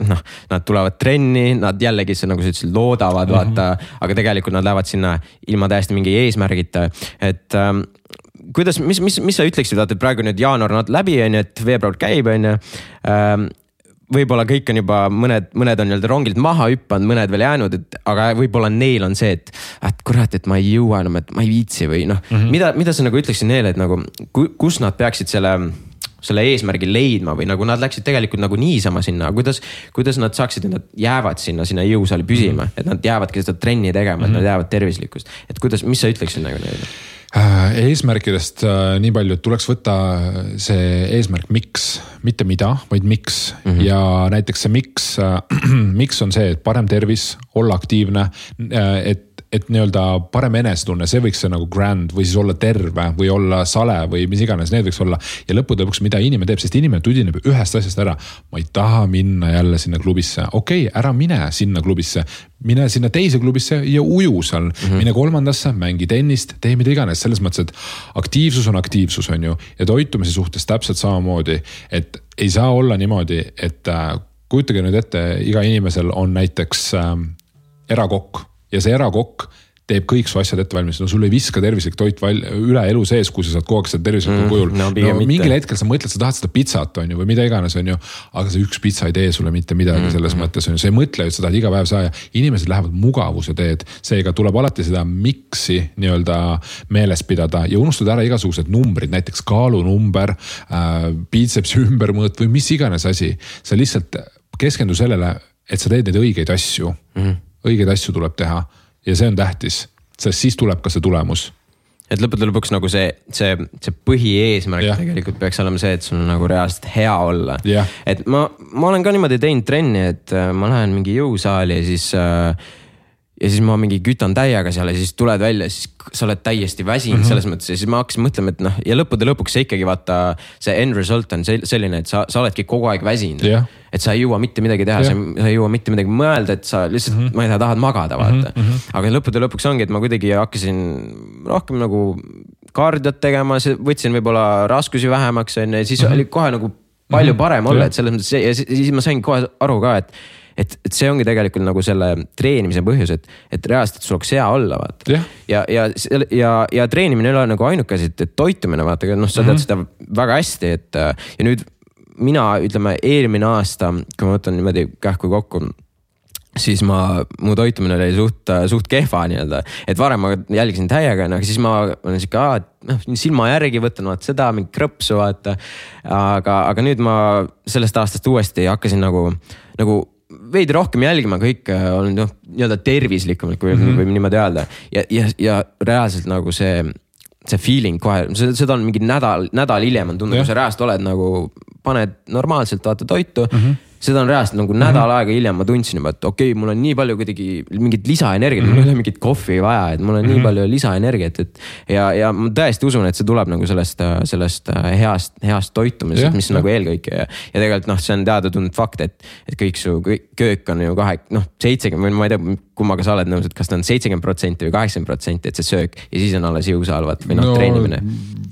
S1: noh, nad tulevad trenni, nad jällegi nagu sa ütlesid, loodavad, vaata, aga tegelikult nad lähevad sinna ilma täiesti mingi eesmärgita, et kuidas, mis sa ütleksid, et praegu nüüd jaanuar on läbi, on ju, et veebruar käib, on ju, võib-olla kõik on juba, mõned on nii-öelda rongilt maha hüppanud, mõned veel jäänud, aga võib-olla neil on see, et kurat, et ma ei jõua enam, et ma ei viitsi või noh, mida sa nagu ütleksid neile, et nagu, kus nad peaksid selle eesmärgi leidma või nagu nad läksid tegelikult nagu niisama sinna, kuidas nad saaksid, et nad jäävad sinna jõusaali püsima, et nad jäävadki seda trenni tegema, et nad jäävad tervislikkust, et kuidas, mis sa ütleksid nagu neile?
S2: Eesmärkidest nii palju, et tuleks võtta see eesmärk miks, mitte mida, vaid miks ja näiteks see miks on see, et parem tervis, olla aktiivne, et nii-öelda parem enesetunne, see võiks see nagu grand või siis olla terve või olla sale või mis iganes, need võiks olla. Ja lõppude lõpuks, mida inimene teeb, sest inimene tudineb ühest asjast ära. Ma ei taha minna jälle sinna klubisse. Okei, ära mine sinna klubisse. Mine sinna teise klubisse ja uju seal. Mine kolmandasse, mängi tennist, tee mida iganes. Selles mõttes, et aktiivsus on ju. Ja toitumise suhtes täpselt samamoodi, et ei saa olla niimoodi, et kujutage nüüd ette, iga inimesel on näiteks erakokk. Ja see erakokk teeb kõik su asjad ette valmis. No sul ei viska tervislik toit üle elu sees, kui sa saad kogu aeg seda tervislikul kujul. No, mingil hetkel sa mõtled, sa tahad seda pizzat on ju, või mida iganes on ju, aga see üks pizza ei tee sulle mitte midagi selles mõttes on ju. See ei mõtle, et sa tahad iga päev saada. Inimesed lähevad mugavuse teed. Seega tuleb alati seda miksi nii-öelda meeles pidada ja unustada ära igasugused numbrid, näiteks kaalunumber, biitsepsi ümbermõõt või mis iganes asi. Sa lihtsalt keskendu sellele, et sa teed neid õigeid asju. Õigeid asju tuleb teha ja see on tähtis, sest siis tuleb ka see tulemus.
S1: Et lõppude lõpuks nagu see põhieesmärk tegelikult peaks olema see, et sul on nagu reaalselt hea olla. Et ma olen ka niimoodi teinud trenni, et ma lähen mingi jõusaali ja siis ma mingi kütan täiega seal ja siis tuled välja, siis sa oled täiesti väsinud selles mõttes ja siis ma hakkasin mõtlema, et noh, ja lõppude lõpuks see ikkagi vaata, see end result on selline, et sa oledki kogu aeg väsinud. Et sa ei jõua mitte midagi teha, sa ei jõua mitte midagi mõelda, et sa lihtsalt, ma ei tea, tahad magada, vaata. Aga lõppude lõpuks ongi, et ma kuidagi hakkasin rohkem nagu kardiot tegema, võtsin võib-olla raskusi vähemaks, ja siis oli kohe nagu palju parem olla, et selles mõttes ja siis ma sain kohe aru ka, et see ongi tegelikult nagu selle treenimise põhjus, et reaalselt sul oleks hea olla, vaata. Ja treenimine ei ole nagu ainuke, et toitumine, vaata, noh, sa tead seda väga hästi, et ja nüüd mina, ütleme, eelmine aasta, kui ma võtan niimoodi kähku kokku, siis mu toitumine oli suht kehva nii-öelda, et varem ma jälgisin täiega, aga siis ma olen siuke, silma järgi võtan vaata seda, mingi krõpsu vaata, aga nüüd ma sellest aastast uuesti hakkasin nagu veidi rohkem jälgima, kõik on nii-öelda tervislikumalt, kui võib niimoodi öelda. Ja reaalselt nagu see feeling kohe, seda on mingi nädal hiljem on tundnud, kui sa reaalselt oled nagu, paned normaalselt vaata toitu, seda on reaalselt nagu nädal aega hiljem ma tundsin juba, et okei, mul on nii palju kuidagi mingit lisaenergiat, mul ei ole mingit kohvi vaja, et mul on nii palju lisaenergiat, ja ma tõesti usun, et see tuleb nagu sellest heast toitumisest, mis on nagu eelkõike ja tegelikult see on teada-tuntud fakt, et kõik su köök on ju 70, ma ei tea, kummaga sa oled nõus, et kas ta on 70% või 80%, et see söök ja siis on alles jõusalvat või treenimine.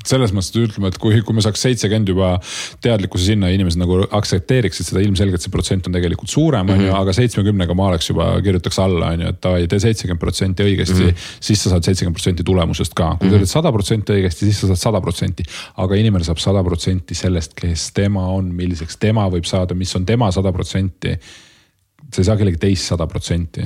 S2: Selles mõttes ütleme, et kui me saaks 70 juba teadlikkuse sinna inimesed nagu aktsepteeriksid seda ilmselgelt see protsent on tegelikult suurem, aga 70-ga ma oleks juba kirjutaks alla, et tee 70% õigesti, siis sa saad 70% tulemusest ka. Kui teed 100% õigesti, siis sa saad 100%, aga inimene saab 100% sellest, kes tema on, milliseks tema võib saada, mis on tema 100%. see ei saa kellegi teist 100%.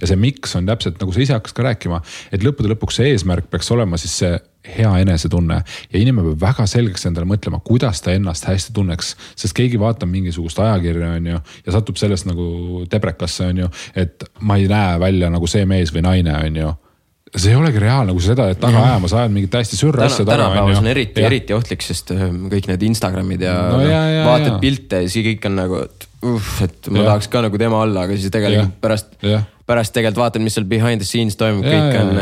S2: Ja see miks on täpselt, nagu sa ise hakkas ka rääkima, et lõppude lõpuks see eesmärk peaks olema siis see hea enesetunne ja inimene peab väga selgeks endale mõtlema, kuidas ta ennast hästi tunneks, sest keegi vaatab mingisugust ajakirja on ju, ja satub sellest nagu tebrekasse on ju, et ma ei näe välja nagu see mees või naine on ju. See ei olegi reaalne, kui seda, et taga ajama sa ajad mingit täiesti sürra asja taga.
S1: Tänapäevas on eriti ohtlik, sest kõik need Instagramid ja vaatad pilte ja siis kõik on nagu, et ma tahaks ka nagu tema olla, aga siis tegelikult pärast tegelikult vaatad, mis seal behind the scenes toimub, kõik on,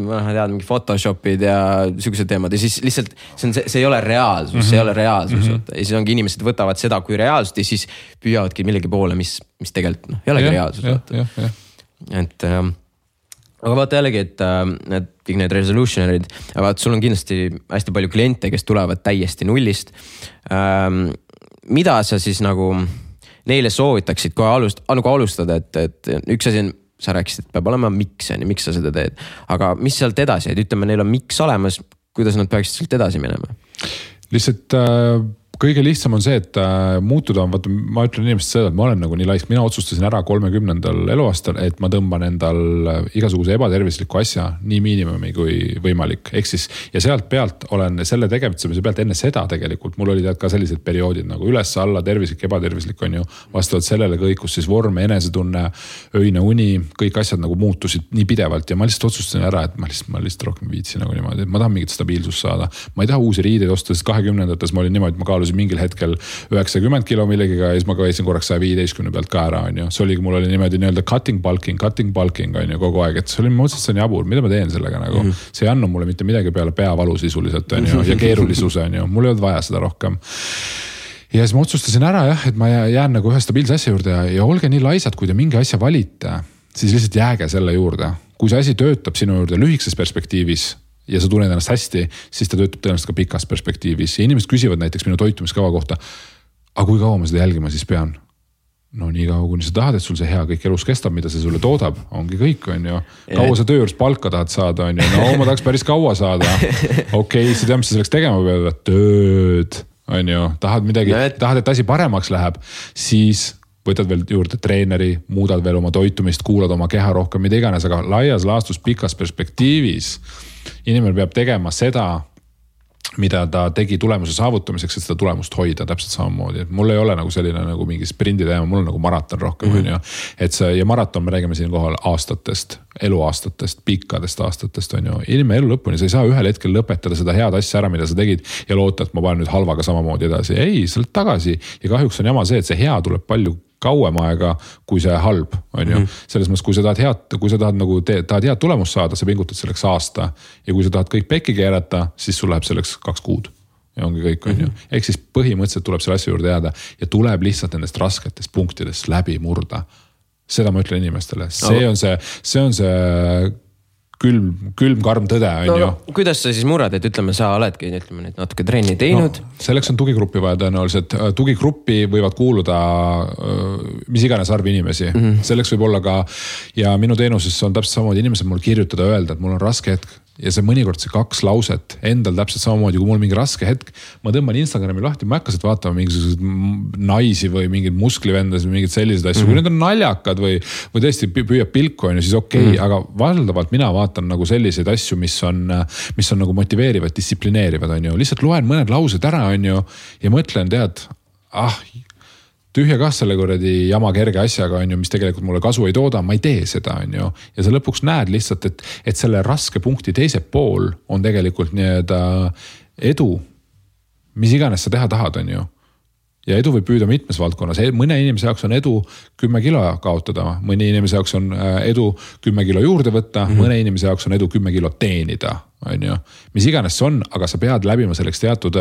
S1: ma tead, mingi Photoshopid ja sügised teemad ja siis lihtsalt see ei ole reaalsus, see ei ole reaalsus. Ja siis ongi inimesed võtavad seda kui reaalsust ja siis püüavadki millegi poole, mis tegelikult ei olegi reaalsus. Et aga vaata jällegi, et kõik need resolutionerid, vaata sul on kindlasti hästi palju kliente, kes tulevad täiesti nullist. Mida sa siis nagu neile soovitaksid kohe alustada, et üks asi on, sa rääkisid, et peab olema miks sa seda teed, aga mis sealt edasi, et ütleme, neil on miks olemas, kuidas nad peaksid sealt edasi minema?
S2: Lihtsalt kõige lihtsam on see, et muutuda on, vaata, ma ütlen inimesed seda, et ma olen nagu nii laisk, mina otsustasin ära 30. eluaastal, et ma tõmban endal igasuguse ebatervisliku asja nii miinimumi kui võimalik. Ehk siis, ja sealt pealt olen selle tegevitsemise pealt enne seda tegelikult, mul oli ka sellised perioodid nagu üles, alla, tervislik, ebatervislik on ju, vastavalt sellele kõikus siis vorm, enesetunne, öine uni, kõik asjad nagu muutusid nii pidevalt ja ma lihtsalt otsustasin ära, et ma lihtsalt rohkem viitsin nagu niimoodi, et ma tahan mingit stabiilsust saada. Ma ei taha uusi riideid osta, sest 20-ndates ma olin niimoodi, ma kaalusin mingil hetkel 90 kilo millegiga ja siis ma käisin korraks 115 pealt ka ära, on ju. See oligi, mul oli niimoodi nii-öelda cutting bulking on ju kogu aeg, et see oli mõtlesin jabur, mida ma teen sellega nagu. See ei annu mulle mitte midagi peale peavalu sisuliselt on ju ja keerulisuse on ju, mul ei olnud vaja seda rohkem. Ja siis ma otsustasin ära jah, et ma jään nagu ühe stabiilse asja juurde ja olge nii laisad, kui te mingi asja valite, siis lihtsalt jääge selle juurde. Kui see asi töötab sinu juurde lühikeses perspektiivis ja sa tunned ennast hästi, siis ta töötab tõenäoliselt ka pikas perspektiivis. Ja inimesed küsivad näiteks minu toitumiskava kohta, aga kui kaua ma seda jälgima siis pean? No nii kaua, kuni sa tahad, et sul see hea kõik elus kestab, mida see sulle toodab, ongi kõik, on ju. Kaua sa töö juures palka tahad saada, on ju. No ma tahaks päris kaua saada. Okei, sa tead, mis sa selleks tegema pead, tööd, on ju. Tahad midagi, tahad, et asi paremaks läheb, siis võtad veel juurde treeneri, muudad veel oma toitumist, kuulad oma keha rohkem, mida iganes, aga laias laastus pikas perspektiivis inimene peab tegema seda, mida ta tegi tulemuse saavutamiseks, et seda tulemust hoida täpselt samamoodi. Et mul ei ole nagu selline nagu mingi sprindi teema, mul on nagu maraton rohkem. Et see, ja maraton me räägime siin kohal aastatest, eluaastatest, pikkadest aastatest on ju. Inimene elu lõpuni, sa ei saa ühel hetkel lõpetada seda head asja ära, mida sa tegid ja loota, et ma panen nüüd halvaga samamoodi edasi. Ei, sa oled tagasi ja kahjuks on jama see, et see hea tuleb palju kauem aega, kui see halb on ju. Selles mõttes, kui sa tahad nagu tahad head tulemust saada, sa pingutad selleks aasta ja kui sa tahad kõik pekki keerata, siis sul läheb selleks 2 kuud ja ongi kõik on ju. Ehk siis põhimõtteliselt tuleb selle asja juurde jääda ja tuleb lihtsalt nendest rasketest punktidest läbi murda. Seda ma ütlen inimestele. See on see külm karm tõde on ju.
S1: Kuidas sa siis murrad, et ütleme, sa oledki natuke trenni teinud?
S2: No, selleks on tugigruppi vaja tõenäoliselt. Tugigruppi võivad kuuluda mis iganes arv inimesi. Selleks võib olla ka, ja minu teenuses on täpselt samamoodi inimesed mul kirjutada öelda, et mul on raske hetk. Ja see mõnikord see 2 lauset endal täpselt samamoodi, kui mul mingi raske hetk, ma tõmban Instagrami lahti, ma hakkasid vaatama mingisugused naisi või mingid musklivendas või mingid sellised asju, kui need on naljakad või tõesti püüab pilku on ju, siis okei, aga valdavalt mina vaatan nagu selliseid asju, mis on nagu motiveerivad, distsiplineerivad on ju, lihtsalt loen mõned laused ära on ju ja mõtlen, tead, tühja kah selle kuradi jama kerge asjaga on ju, mis tegelikult mulle kasu ei tooda, ma ei tee seda on ju. Ja sa lõpuks näed lihtsalt, et selle raske punkti teise pool on tegelikult nii-öelda edu, mis iganes sa teha tahad on ju. Ja edu võib püüda mitmes valdkonnas. Mõne inimese jaoks on edu 10 kilo kaotada, mõne inimese jaoks on edu 10 kilo juurde võtta, mõne inimese jaoks on edu 10 kilo teenida. On ju. Mis iganes see on, aga sa pead läbima selleks teatud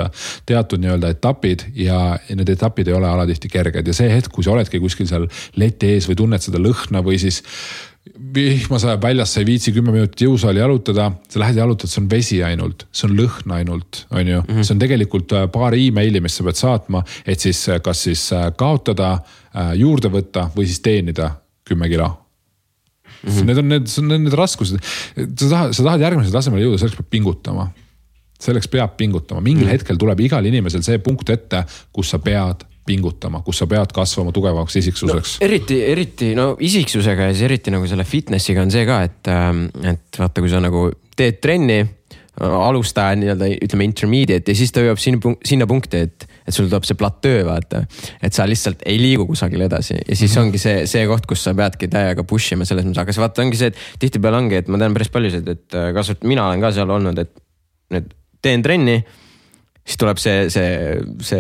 S2: nii-öelda etapid ja need etapid ei ole alatihti kerged. Ja see hetk, kui sa oledki kuskil seal leti ees või tunned seda lõhna või siis vihma sajab väljas, sa ei viitsi 10 minutit jõusaali jalutada, sa lähed jalutad, see on vesi ainult, see on lõhn ainult, on ju. See on tegelikult paar e-maili, mis sa pead saatma, et siis kas siis kaotada, juurde võtta või siis teenida 10 kilo. Need on need raskused. Sa tahad järgmisel tasemel jõuda, selleks peab pingutama. Selleks peab pingutama. Mingil hetkel tuleb igal inimesel see punkt ette, kus sa pead pingutama, kus sa pead kasvama tugevaks isiksuseks.
S1: Eriti isiksusega ja siis eriti nagu selle fitnessiga on see ka, et vaata, kui sa nagu teed trenni, alustaja nii-öelda ütleme intermediate ja siis ta jõuab sinna punkti, et sul tuleb see platöö, vaata. Et sa lihtsalt ei liigu kusagil edasi ja siis ongi see koht, kus sa peadki täiega push ima selles mõttes, aga see vaata ongi see, et tihtipeale ongi, et ma tean päris paljusid, et kasvõt mina olen ka seal olnud, et teen trenni, siis tuleb see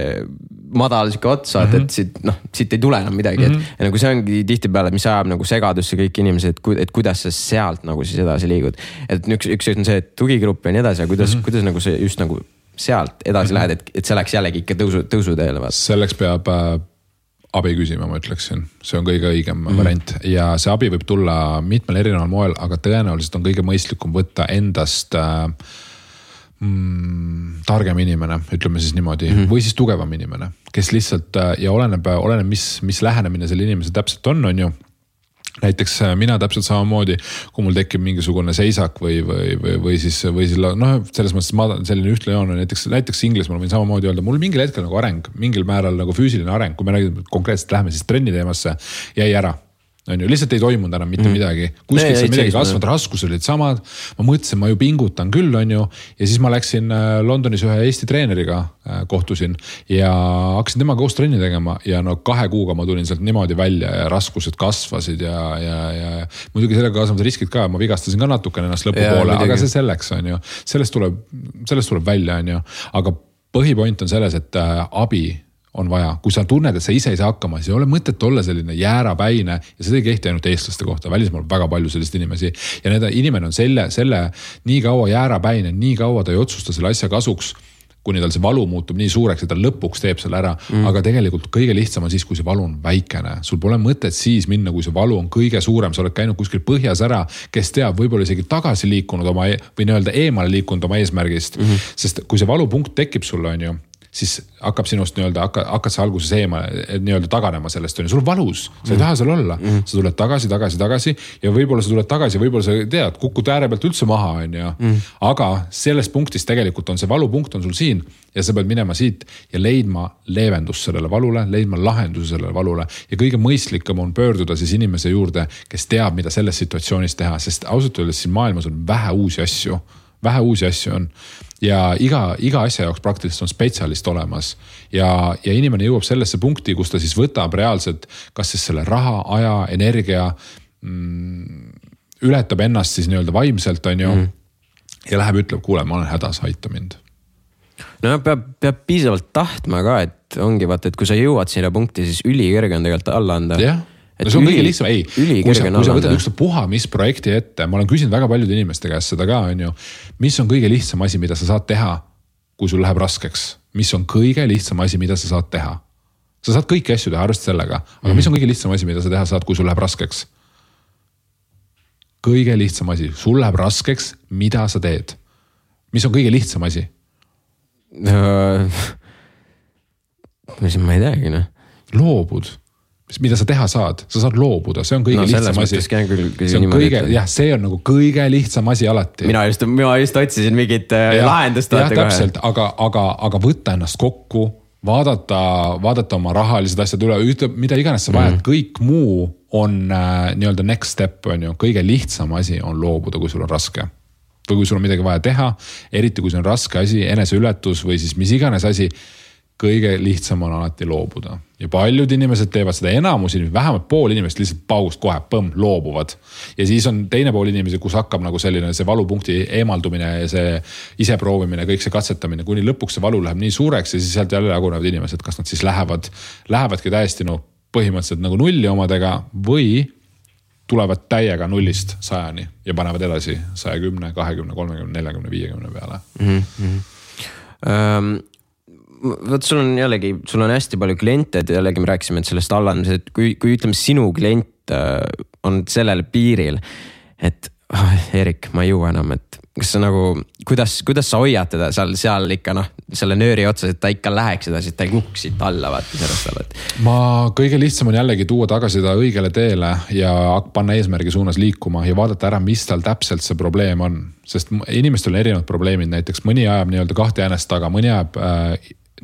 S1: madal siuke otsa, et siit ei tule enam midagi, et nagu see ongi tihtipeale, mis ajab nagu segadusse kõik inimesed, et kuidas sa sealt nagu siis edasi liigud. Et üks on see, et tugigrupp ja nii edasi, aga kuidas nagu see just nagu sealt edasi lähed, et see läks jällegi ikka tõusuteele.
S2: Selleks peab abi küsima, ma ütleksin. See on kõige õigem variant ja see abi võib tulla mitmel erineval moel, aga tõenäoliselt on kõige mõistlikum võtta endast targem inimene, ütleme siis niimoodi, või siis tugevam inimene, kes lihtsalt ja oleneb, mis lähenemine selle inimese täpselt on ju. Näiteks mina täpselt samamoodi, kui mul tekib mingisugune seisak või siis selles mõttes selline ühtne joon on näiteks Inglismaal võin samamoodi öelda, mul mingil hetkel nagu areng, mingil määral nagu füüsiline areng, kui me räägime konkreetselt läheme siis trenni teemasse, jäi ära. On ju, lihtsalt ei toimunud enam mitte midagi. Kuskilt see midagi kasvanud, raskused olid samad. Ma mõtlesin, ma ju pingutan küll, on ju. Ja siis ma läksin Londonis ühe Eesti treeneriga kohtusin ja hakkasin temaga koos trenni tegema ja 2 kuuga ma tulin sealt niimoodi välja ja raskused kasvasid ja muidugi sellega kasvanud riskid ka, ma vigastasin ka natukene ennast lõpupoole, aga see selleks on ju. Sellest tuleb välja, on ju. Aga põhipoint on selles, et abi on vaja. Kui sa tunned, et sa ise ei saa hakkama, siis ei ole mõtet olla selline jäärapäine ja seda ei kehti ainult eestlaste kohta. Välismaal väga palju sellist inimesi ja inimene on selle nii kaua jäärapäine, nii kaua ta ei otsusta selle asja kasuks, kuni tal see valu muutub nii suureks, et ta lõpuks teeb selle ära. Aga tegelikult kõige lihtsam on siis, kui see valu on väikene. Sul pole mõtet siis minna, kui see valu on kõige suurem. Sa oled käinud kuskil põhjas ära, kes teab, võib-olla isegi tagasi liikunud või nii-öelda eemale liikunud oma eesmärgist. Sest kui see valupunkt tekib sulle, on ju, siis hakkab sinust nii-öelda, hakkad sa alguses nii-öelda taganema sellest, on ju, sul valus, sa ei taha seal olla, sa tuled tagasi ja võib-olla sa tuled tagasi, võib-olla sa tead, kukud ääre pealt üldse maha, on ju, aga selles punktis tegelikult on see valupunkt on sul siin ja sa pead minema siit ja leidma leevendust sellele valule, leidma lahenduse sellele valule ja kõige mõistlikum on pöörduda siis inimese juurde, kes teab, mida selles situatsioonis teha, sest ausalt öeldes siin maailmas on vähe uusi asju on ja iga asja jaoks praktiliselt on spetsialist olemas ja inimene jõuab sellesse punkti, kus ta siis võtab reaalselt kas siis selle raha, aja, energia, ületab ennast siis nii-öelda vaimselt, on ju, ja läheb ütleb, kuule, ma olen hädas, aita mind.
S1: No peab piisavalt tahtma ka, et ongi vaata, et kui sa jõuad sinna punkti, siis ülikõrge on tegelikult alla anda.
S2: Jah. No see on kõige lihtsam, kui sa võtad üks puha, mis projekti ette, ma olen küsinud väga paljude inimeste käest seda ka, on ju, mis on kõige lihtsam asi, mida sa saad teha, kui sul läheb raskeks, mis on kõige lihtsam asi, mida sa saad teha. Sa saad kõiki asju teha, arvesta sellega, aga mis on kõige lihtsam asi, mida sa teha saad, kui sul läheb raskeks? Kõige lihtsam asi, sul läheb raskeks, mida sa teed? Mis on kõige lihtsam asi?
S1: Ma ei teagi,
S2: Loobud. Mida sa teha saad loobuda, see on kõige lihtsam asi. See on nagu kõige lihtsam asi alati.
S1: Mina just otsisin mingit lahendust.
S2: Jah, täpselt, aga võtta ennast kokku, vaadata oma rahalised asjad üle, mida iganes sa vajad, kõik muu on nii-öelda next step, on ju, kõige lihtsam asi on loobuda, kui sul on raske. Või kui sul on midagi vaja teha, eriti kui see on raske asi, eneseületus või siis mis iganes asi, kõige lihtsam on alati loobuda. Ja paljud inimesed teevad seda, enamus inimesed, vähemalt pool inimesed lihtsalt paugust kohe, loobuvad. Ja siis on teine pool inimesi, kus hakkab nagu selline see valupunkti eemaldumine ja see iseproovimine, kõik see katsetamine, kuni lõpuks see valu läheb nii suureks ja siis sealt jälle jagunevad inimesed, kas nad siis lähevadki täiesti põhimõtteliselt nagu nulli omadega või tulevad täiega 0-st 100-ni ja panevad edasi 110, 20, 30, 40, 50 peale.
S1: Võt, sul on hästi palju kliente, et jällegi me rääkisime sellest allandamisest, et kui ütleme sinu klient on sellel piiril, et Erik, ma ei jõua enam, et kas sa nagu, kuidas sa hoiad teda seal ikka selle nööri otsas, et ta ikka läheks edasi, et ta ei kuks siit alla vaata sellest alla.
S2: Ma kõige lihtsam on jällegi tuua tagasi ta õigele teele ja panna eesmärgi suunas liikuma ja vaadata ära, mis tal täpselt see probleem on. Sest inimestel on erinevad probleemid, näiteks mõni ajab nii-öelda 2 jäänest taga, mõni ajab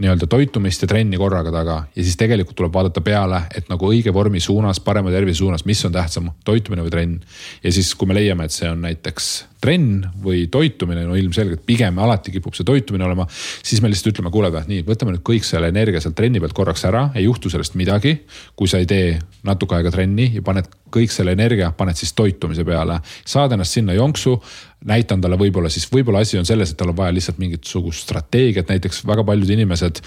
S2: nii-öelda toitumist ja trenni korraga taga ja siis tegelikult tuleb vaadata peale, et nagu õige vormi suunas, parema tervise suunas, mis on tähtsam, toitumine või trenn. Ja siis, kui me leiame, et see on näiteks trenn või toitumine, no ilmselgelt pigem alati kipub see toitumine olema, siis me lihtsalt ütleme, kuule, nii, võtame nüüd kõik selle energia sealt trenni pealt korraks ära, ei juhtu sellest midagi, kui sa ei tee natuke aega trenni ja paned kõik selle energia, paned siis toitumise peale, saad ennast sinna jonksu, näitan talle võib-olla asi on selles, et tal on vaja lihtsalt mingisugust strateegiat, näiteks väga paljud inimesed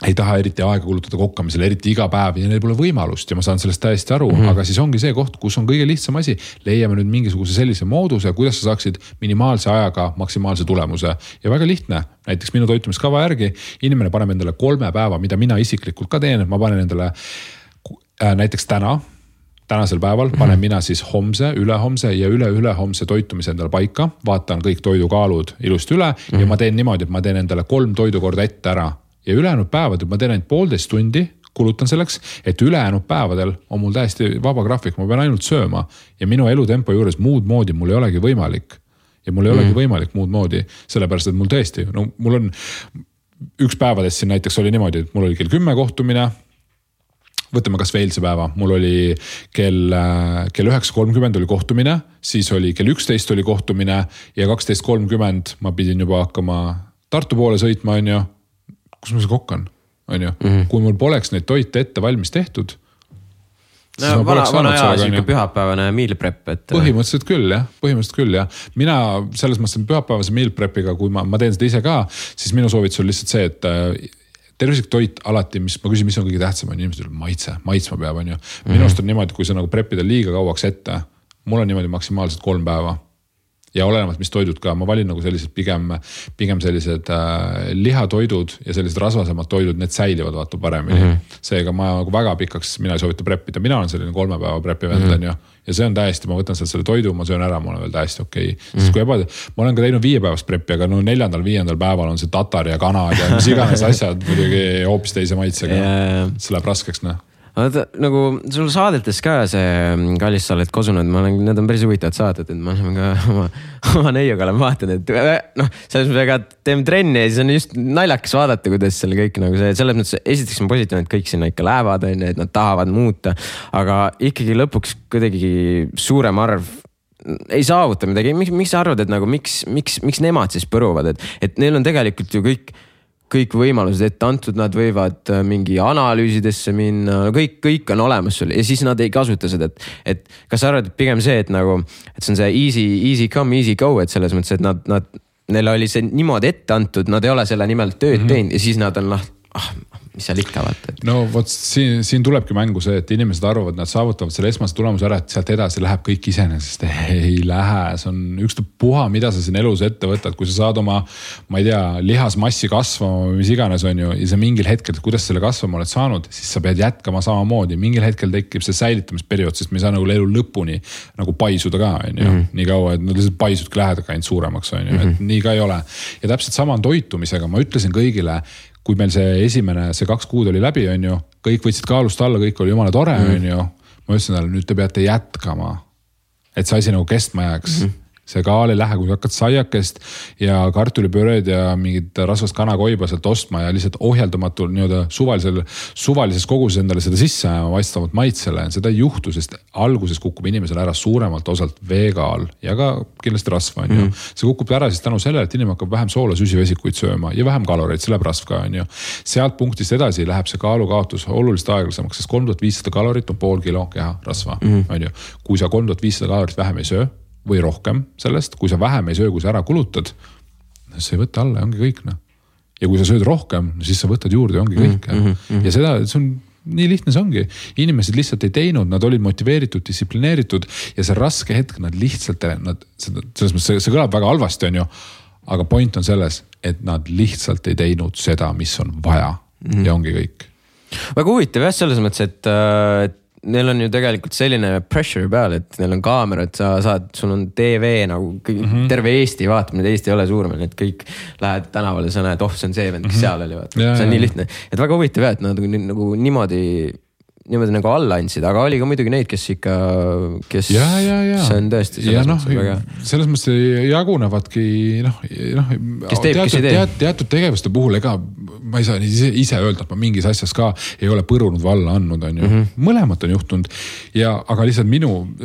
S2: ei taha eriti aega kulutada kokkamisele, eriti iga päev ja neil pole võimalust ja ma saan sellest täiesti aru, aga siis ongi see koht, kus on kõige lihtsam asi, leiame nüüd mingisuguse sellise mooduse, kuidas sa saaksid minimaalse ajaga maksimaalse tulemuse ja väga lihtne, näiteks minu toitumiskava järgi inimene paneb endale 3 päeva, mida mina isiklikult ka teen, et ma panen endale näiteks tänasel päeval panen mina siis homse, ülehomse ja üle-ülehomse toitumise endale paika, vaatan kõik toidukaalud ilusti üle ja ma teen niimoodi, et ma teen endale 3 toidukorda ette ära ja ülejäänud päevadel ma teen ainult 1,5 tundi, kulutan selleks, et ülejäänud päevadel on mul täiesti vaba graafik, ma pean ainult sööma ja minu elutempo juures muud moodi mul ei olegi võimalik ja mul ei olegi võimalik muud moodi, sellepärast et mul tõesti, no mul on üks päevadest siin näiteks oli niimoodi, et mul oli kell 10 kohtumine, võtame kas veel see päeva, mul oli kell 9.30 oli kohtumine, siis oli kell 11 oli kohtumine ja 12.30 ma pidin juba hakkama Tartu poole sõitma, on ju, kus ma see kokkan, on ju, kui mul poleks neid toite ette valmis tehtud.
S1: No, vana aja siuke pühapäevane meal prep, et
S2: põhimõtteliselt küll, jah. Mina selles mõttes pühapäevase meal prepiga, kui ma teen seda ise ka, siis minu soovitus on lihtsalt see, et tervislik toit alati, mis ma küsin, mis on kõige tähtsam, on inimesed maitsma peab, on ju. Minu arust on niimoodi, kui sa nagu prepida liiga kauaks ette, mul on niimoodi maksimaalselt 3 päeva. Ja olenevad, mis toidud ka, ma valin nagu sellised pigem sellised lihatoidud ja sellised rasvasemad toidud, need säilivad vaata paremini. Seega ma nagu väga pikaks, mina ei soovita preppida, mina olen selline 3 päeva preppi vend, ja see on täiesti, ma võtan selle toidu, ma söön ära, ma olen veel täiesti okei. Siis kui ma olen ka teinud 5 päevast preppi, aga no 4.-5. päeval on see tatar ja kanad ja mis iganes asjad muidugi hoopis teise maitsega. See läheb raskeks,
S1: nagu sul saadetes ka see Kallis, sa oled kosunud, need on päris huvitavad saated, et ma olen ka oma neiuga olen vaatanud, et selles mõttes väga teeme trenni ja siis on just naljakas vaadata, kuidas seal kõik nagu see, selles mõttes esiteks on positiivne, et kõik sinna ikka lähevad, et nad tahavad muuta, aga ikkagi lõpuks kuidagi suurem arv ei saavuta midagi. Miks sa arvad, et nagu miks nemad siis põruvad, et neil on tegelikult ju kõik võimalused ette antud, nad võivad mingi analüüsidesse minna, kõik on olemas sul ja siis nad ei kasuta seda, et kas sa arvad, et pigem see, et nagu, et see on see easy come, easy go, et selles mõttes, et neil oli see niimoodi ette antud, nad ei ole selle nimel tööd teinud ja siis nad on mis seal ikka vaata.
S2: No vot siin tulebki mängu see, et inimesed arvavad, nad saavutavad selle esmase tulemuse ära, et sealt edasi läheb kõik iseenesest. Ei lähe, see on ükstapuha, mida sa siin elus ette võtad, kui sa saad oma, ma ei tea, lihasmassi kasvama või mis iganes on ju, ja sa mingil hetkel, kuidas selle kasvama oled saanud, siis sa pead jätkama samamoodi. Mingil hetkel tekib see säilitamisperiood, sest me ei saa nagu elu lõpuni nagu paisuda ka, on ju, nii kaua, et nad lihtsalt paisudki lähedagi ainult suuremaks, on ju, et nii ka ei ole. Ja täpselt sama on toitumisega, ma ütlesin kõigile, kui meil see 2 kuud oli läbi, on ju, kõik võtsid kaalust alla, kõik oli jumala tore, on ju. Ma ütlesin talle, nüüd te peate jätkama, et see asi nagu kestma jääks. See kaal ei lähe, kui hakkad saiakest ja kartulipööred ja mingid rasvast kanakoiba sealt ostma ja lihtsalt ohjeldamatult suvalises koguses endale seda sisse vastavalt maitsele. Seda ei juhtu, sest alguses kukub inimesel ära suuremalt osalt veekaal ja ka kindlasti rasva, on ju. See kukub ära siis tänu sellele, et inimene hakkab vähem soola süsivesikuid sööma ja vähem kaloreid, see läheb rasv ka, on ju. Sealt punktist edasi läheb see kaalukaotus oluliselt aeglasemaks, sest 3500 kalorit on pool kilo keha rasva, on ju. Kui sa 3500 kalorit vähem ei söö, või rohkem sellest, kui sa vähem ei söö, kui sa ära kulutad, sa ei võta alla ja ongi kõik. Ja kui sa sööd rohkem, siis sa võtad juurde ja ongi kõik. Ja seda, see on nii lihtne, see ongi. Inimesed lihtsalt ei teinud, nad olid motiveeritud, distsiplineeritud ja see raske hetk, nad lihtsalt, selles mõttes see kõlab väga halvasti, on ju, aga point on selles, et nad lihtsalt ei teinud seda, mis on vaja ja ongi kõik.
S1: Väga huvitav jah, selles mõttes, et neil on ju tegelikult selline pressure peal, et neil on kaamerad, sul on TV nagu terve Eesti vaatab, nüüd Eesti ei ole suurem, et kõik lähed tänavale, sa näed, see on see vend, kes seal oli, vaata. See on nii lihtne, et väga huvitav jah, et nad nagu niimoodi nagu alla andsid, aga oli ka muidugi neid, kes ikka, kes see on tõesti
S2: selles mõttes jagunevadki
S1: kes teeb, kes ei tee.
S2: Teatud tegevuste puhul, ega ma ei saa ise öelda, et ma mingis asjas ka ei ole põrunud või alla andnud, on ju. Mõlemat on juhtunud aga lihtsalt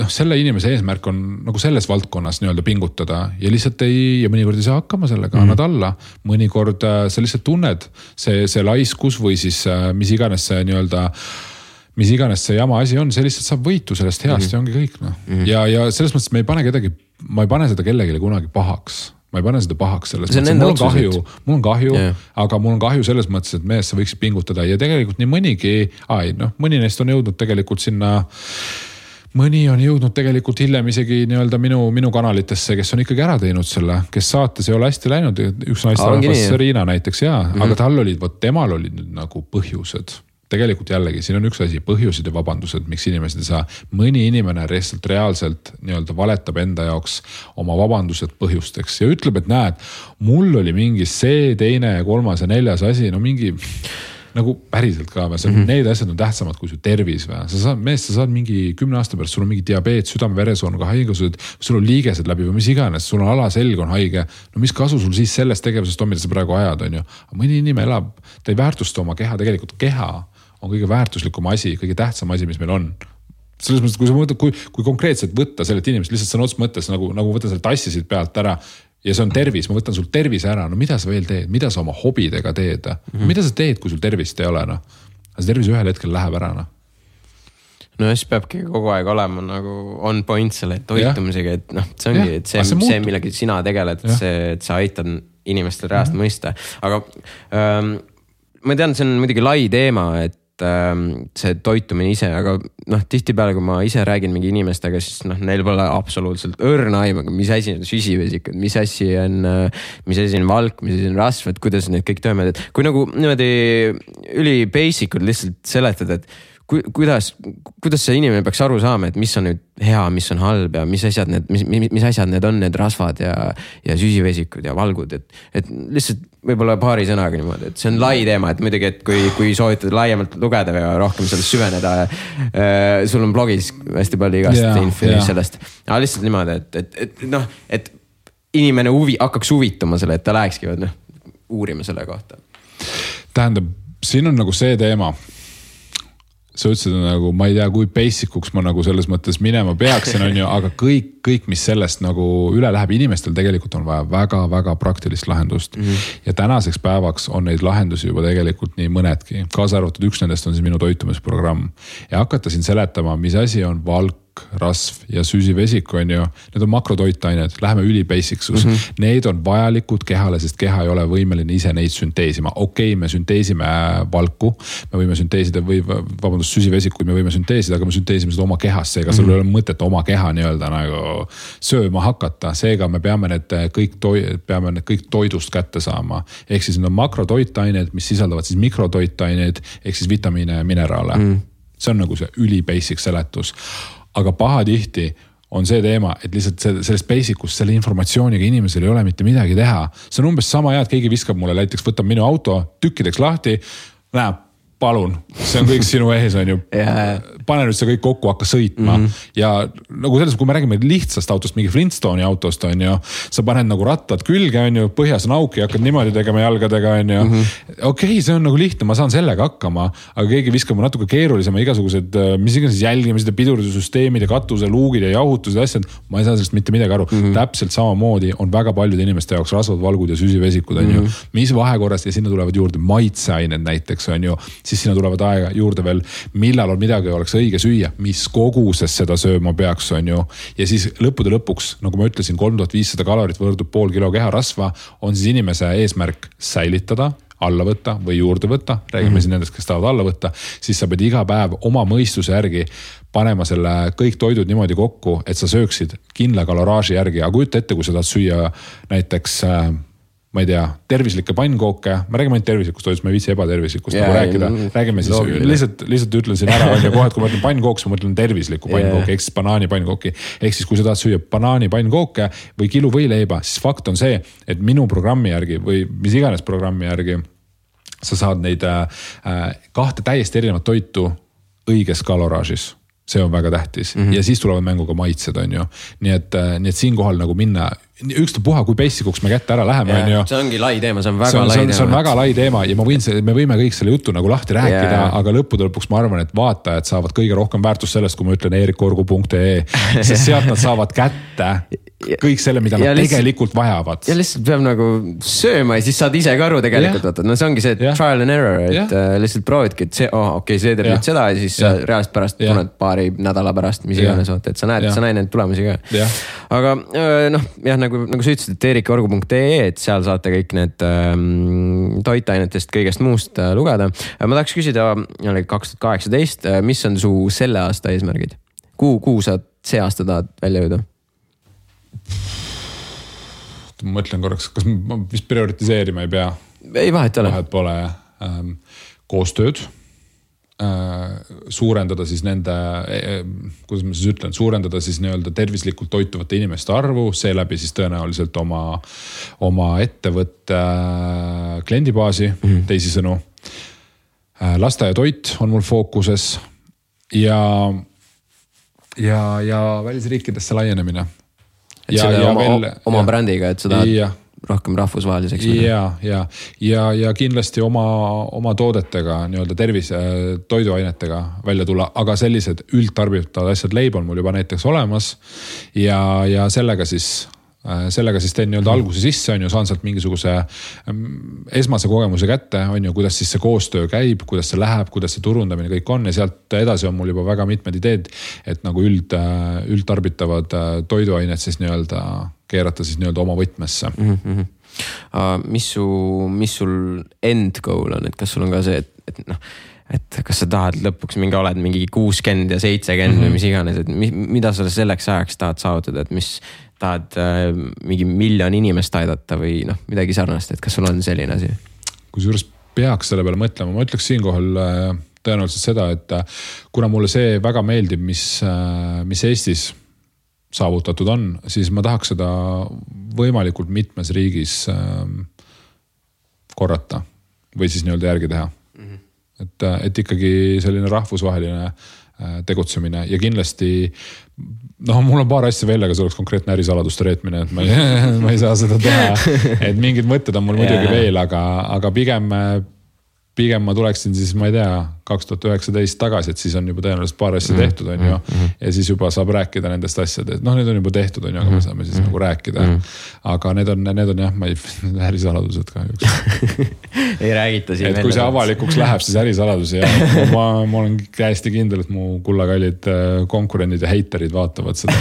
S2: selle inimese eesmärk on nagu selles valdkonnas nii-öelda pingutada ja lihtsalt ja mõnikord ei saa hakkama sellega, annad alla. Mõnikord sa lihtsalt tunned see laiskus või siis mis iganes see jama asi on, see lihtsalt saab võitu sellest heast ja ongi kõik. Ja selles mõttes ma ei pane seda kellelegi kunagi pahaks. Ma ei pane seda pahaks selles mõttes. Mul on kahju, aga mul on kahju selles mõttes, et mees sa võiksid pingutada ja tegelikult nii mõni neist on jõudnud tegelikult sinna, mõni on jõudnud tegelikult hiljem isegi nii-öelda minu kanalitesse, kes on ikkagi ära teinud selle, kes saates ei ole hästi läinud, üks naisterahvas Riina näiteks aga temal olid nüüd nagu põhjused. Tegelikult jällegi, siin on üks asi, põhjused ja vabandused, miks inimesed ei saa. Mõni inimene reaalselt nii-öelda valetab enda jaoks oma vabandused põhjusteks ja ütleb, et näed, mul oli mingi see, teine, kolmas ja neljas asi, mingi nagu päriselt ka, need asjad on tähtsamad kui su tervis. Sa saad mingi 10 aasta pärast, sul on mingi diabeet, südame-veresoonuga haigused, sul on liigesed läbi või mis iganes, sul on alaselg on haige. No mis kasu sul siis sellest tegevusest on, mida sa praegu ajad, on ju. Mõni inimene elab, ta ei väärtusta oma keha, tegelikult keha on kõige väärtuslikum asi, kõige tähtsam asi, mis meil on. Selles mõttes, kui sa mõtled, kui konkreetselt võtta sellelt inimest, lihtsalt sõna otseses mõttes, nagu võtta selle tassisid pealt ära ja see on tervis, ma võtan sul tervise ära, no mida sa veel teed, mida sa oma hobidega teed, mida sa teed, kui sul tervist ei ole, see tervis ühel hetkel läheb ära,
S1: No siis peabki kogu aeg olema nagu on point selle toitumisega, et see ongi, et see millega sina tegeled, et sa aitad inimestel reaalselt mõista, aga ma tean, see on muidugi lai teema, et see toitumine ise, aga tihtipeale, kui ma ise räägin mingi inimestega, siis neil pole absoluutselt õrna aimaga, mis asi on süsivesikud, mis asi on valk, mis asi on rasv, et kuidas need kõik töövad, et kui nagu niimoodi üli basic'ud lihtsalt seletad, et kuidas see inimene peaks aru saama, et mis on nüüd hea, mis on halb ja mis asjad need on, need rasvad ja süsivesikud ja valgud, et lihtsalt võib-olla paari sõnaga niimoodi, et see on lai teema, et muidugi, et kui soovitad laiemalt lugeda ja rohkem sellest süveneda, sul on blogis hästi palju igast info sellest, aga lihtsalt niimoodi, et inimene hakkaks huvituma selle, et ta lähekski uurima selle kohta.
S2: Tähendab, siin on nagu see teema, sa ütlesid nagu, ma ei tea, kui basic'uks ma nagu selles mõttes minema peaksin, on ju, aga kõik, mis sellest nagu üle läheb, inimestel tegelikult on vaja väga-väga praktilist lahendust. Ja tänaseks päevaks on neid lahendusi juba tegelikult nii mõnedki. Kaasa arvatud üks nendest on siis minu toitumisprogramm. Ja hakata siin seletama, mis asi on valk, rasv ja süsivesik, on ju, need on makrotoitained, läheme üli basic'sus. Need on vajalikud kehale, sest keha ei ole võimeline ise neid sünteesima. Okei, me sünteesime valku, me võime sünteesida süsivesikuid, me võime sünteesida, aga me sünteesime seda oma kehas, seega sul ei ole mõtet oma keha nii-öelda nagu sööma hakata, seega me peame need kõik toidust kätte saama. Ehk siis need on makrotoitained, mis sisaldavad siis mikrotoitained, ehk siis vitamiine ja mineraale. See on nagu see üli basic seletus. Aga pahatihti on see teema, et lihtsalt sellest basic'ust selle informatsiooniga inimesel ei ole mitte midagi teha. See on umbes sama hea, et keegi viskab mulle, näiteks võtab minu auto tükkideks lahti, näeb, palun, see on kõik sinu ees, on ju. Pane nüüd see kõik kokku, hakka sõitma. Ja nagu selles, kui me räägime lihtsast autost, mingi Flintstone'i autost, on ju, sa paned nagu rattad külge, on ju, põhjas on auki, hakkad niimoodi tegema jalgadega, on ju. Okei, see on nagu lihtne, ma saan sellega hakkama, aga keegi viskab natuke keerulisema igasugused, mis iganes jälgimised ja pidurdussüsteemid ja katuse, luugid ja jahutused ja asjad, ma ei saa sellest mitte midagi aru. Täpselt samamoodi on väga paljude inimeste jaoks rasvad, valgud ja süsivesikud, on ju. Mis vahekorrast ja sinna tulevad juurde maitseained näiteks, on ju. Siis sinna tulevad aega juurde veel, millal on midagi oleks õige süüa, mis koguses seda sööma peaks, on ju. Ja siis lõppude lõpuks, nagu ma ütlesin, 3500 kalorit võrdub pool kilo keharasva, on siis inimese eesmärk säilitada, alla võtta või juurde võtta, räägime siin nendest, kes tahavad alla võtta, siis sa pead iga päev oma mõistuse järgi panema selle kõik toidud niimoodi kokku, et sa sööksid kindla kaloraaži järgi, aga kujuta ette, kui sa tahad süüa näiteks ma ei tea, tervislikke pannkooke, ma räägime ainult tervislikust toidust, ma ei viitsi ebatervislikust nagu rääkida, räägime siis, lihtsalt ütlen siin ära, on ju kohe, et kui ma mõtlen pannkooks, ma mõtlen tervislikku pannkooki, ehk siis banaani pannkooki, ehk siis kui sa tahad süüa banaani pannkooke või kilu võileiba, siis fakt on see, et minu programmi järgi või mis iganes programmi järgi sa saad neid kahte täiesti erinevat toitu õiges kaloraažis. See on väga tähtis ja siis tulevad mängu ka maitsed, on ju. Nii et siinkohal nagu minna ükstapuha, kui basicuks me kätte ära läheme, on ju.
S1: See ongi lai teema, see on väga lai teema.
S2: See on väga lai teema ja me võime kõik selle jutu nagu lahti rääkida, aga lõppude lõpuks ma arvan, et vaatajad saavad kõige rohkem väärtust sellest, kui ma ütlen erikorgu.ee, sest sealt nad saavad kätte kõik selle, mida nad tegelikult vajavad.
S1: Ja lihtsalt peab nagu sööma ja siis saad ise ka aru tegelikult, vaata. No see ongi see trial and error, et lihtsalt proovidki, et see, see teeb nüüd seda ja siis reaalselt pärast tunned paari nädala pärast, mis iganes, vaata, et sa näed neid tulemusi ka. Aga nagu sa ütlesid, et erikorgu.ee, et seal saate kõik need toitainetest kõigest muust lugeda. Ma tahaks küsida 2018, mis on su selle aasta eesmärgid? Kuhu sa see aasta tahad välja jõuda?
S2: Ma mõtlen korraks, kas ma vist prioritiseerima ei pea?
S1: Ei, vahet ole.
S2: Vahet pole. Koostööd. Suurendada siis nende, kuidas ma siis ütlen, suurendada siis nii-öelda tervislikult toituvate inimeste arvu, seeläbi siis tõenäoliselt oma ettevõtte kliendibaasi, teisisõnu. Lasteaia toit on mul fookuses ja välisriikidesse laienemine.
S1: Et oma brändiga, et seda rohkem rahvusvaheliseks.
S2: Ja kindlasti oma toodetega, nii-öelda toiduainetega välja tulla, aga sellised üldtarbitavad asjad, leib on mul juba näiteks olemas ja sellega siis teen nii-öelda alguse sisse, on ju, saan sealt mingisuguse esmase kogemuse kätte, on ju, kuidas siis see koostöö käib, kuidas see läheb, kuidas see turundamine kõik on ja sealt edasi on mul juba väga mitmed ideed, et nagu üldtarbitavad toiduained siis nii-öelda keerata siis nii-öelda oma võtmesse.
S1: Mis sul end goal on, et kas sul on ka see, et kas sa tahad lõpuks oled mingi 60 ja 70 või mis iganes, et mida sa selleks ajaks tahad saavutada, et mis tahad mingi 1 miljon inimest aidata või midagi sarnast, et kas sul on selline asi?
S2: Kui juures peaks selle peale mõtlema, ma ütleks siinkohal tõenäoliselt seda, et kuna mulle see väga meeldib, mis Eestis saavutatud on, siis ma tahaks seda võimalikult mitmes riigis korrata või siis nii-öelda järgi teha. Et ikkagi selline rahvusvaheline tegutsemine ja kindlasti mul on paar asja veel, aga see oleks konkreetne ärisaladuste reetmine, et ma ei saa seda teha, et mingid mõtted on mul muidugi veel, aga pigem ma tuleksin siis, ma ei tea, 2019 tagasi, et siis on juba tõenäoliselt paar asja tehtud, on ju, ja siis juba saab rääkida nendest asjadest, need on juba tehtud, on ju, aga me saame siis nagu rääkida, aga need on jah, ma ei ärisaladused kahjuks.
S1: Ei räägita siin.
S2: Et kui see avalikuks läheb, siis ärisaladusi ja ma olen täiesti kindel, et mu kullakallid konkurendid ja heiterid vaatavad seda,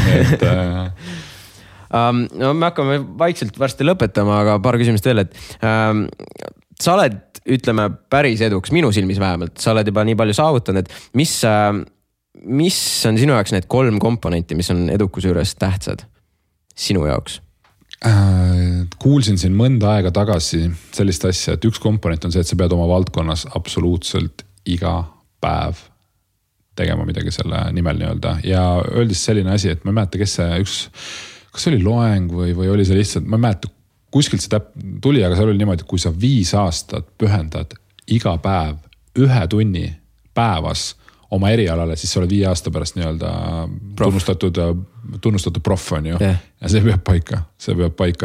S1: me hakkame vaikselt varsti lõpetama, aga paar küsimust veel, et sa oled, ütleme, päris eduks, minu silmis vähemalt, sa oled juba nii palju saavutanud, et mis on sinu jaoks need 3 komponenti, mis on edukuse juures tähtsad sinu jaoks?
S2: Kuulsin siin mõnda aega tagasi sellist asja, et üks komponent on see, et sa pead oma valdkonnas absoluutselt iga päev tegema midagi selle nimel nii-öelda ja öeldes selline asi, et ma ei mäleta, kas see oli loeng või oli see lihtsalt, ma ei mäleta, kuskilt see tuli, aga seal oli niimoodi, et kui sa 5 aastat pühendad iga päev 1 tunni päevas oma erialale, siis sa oled 5 aasta pärast nii-öelda tunnustatud proff on ju. Ja see peab paika,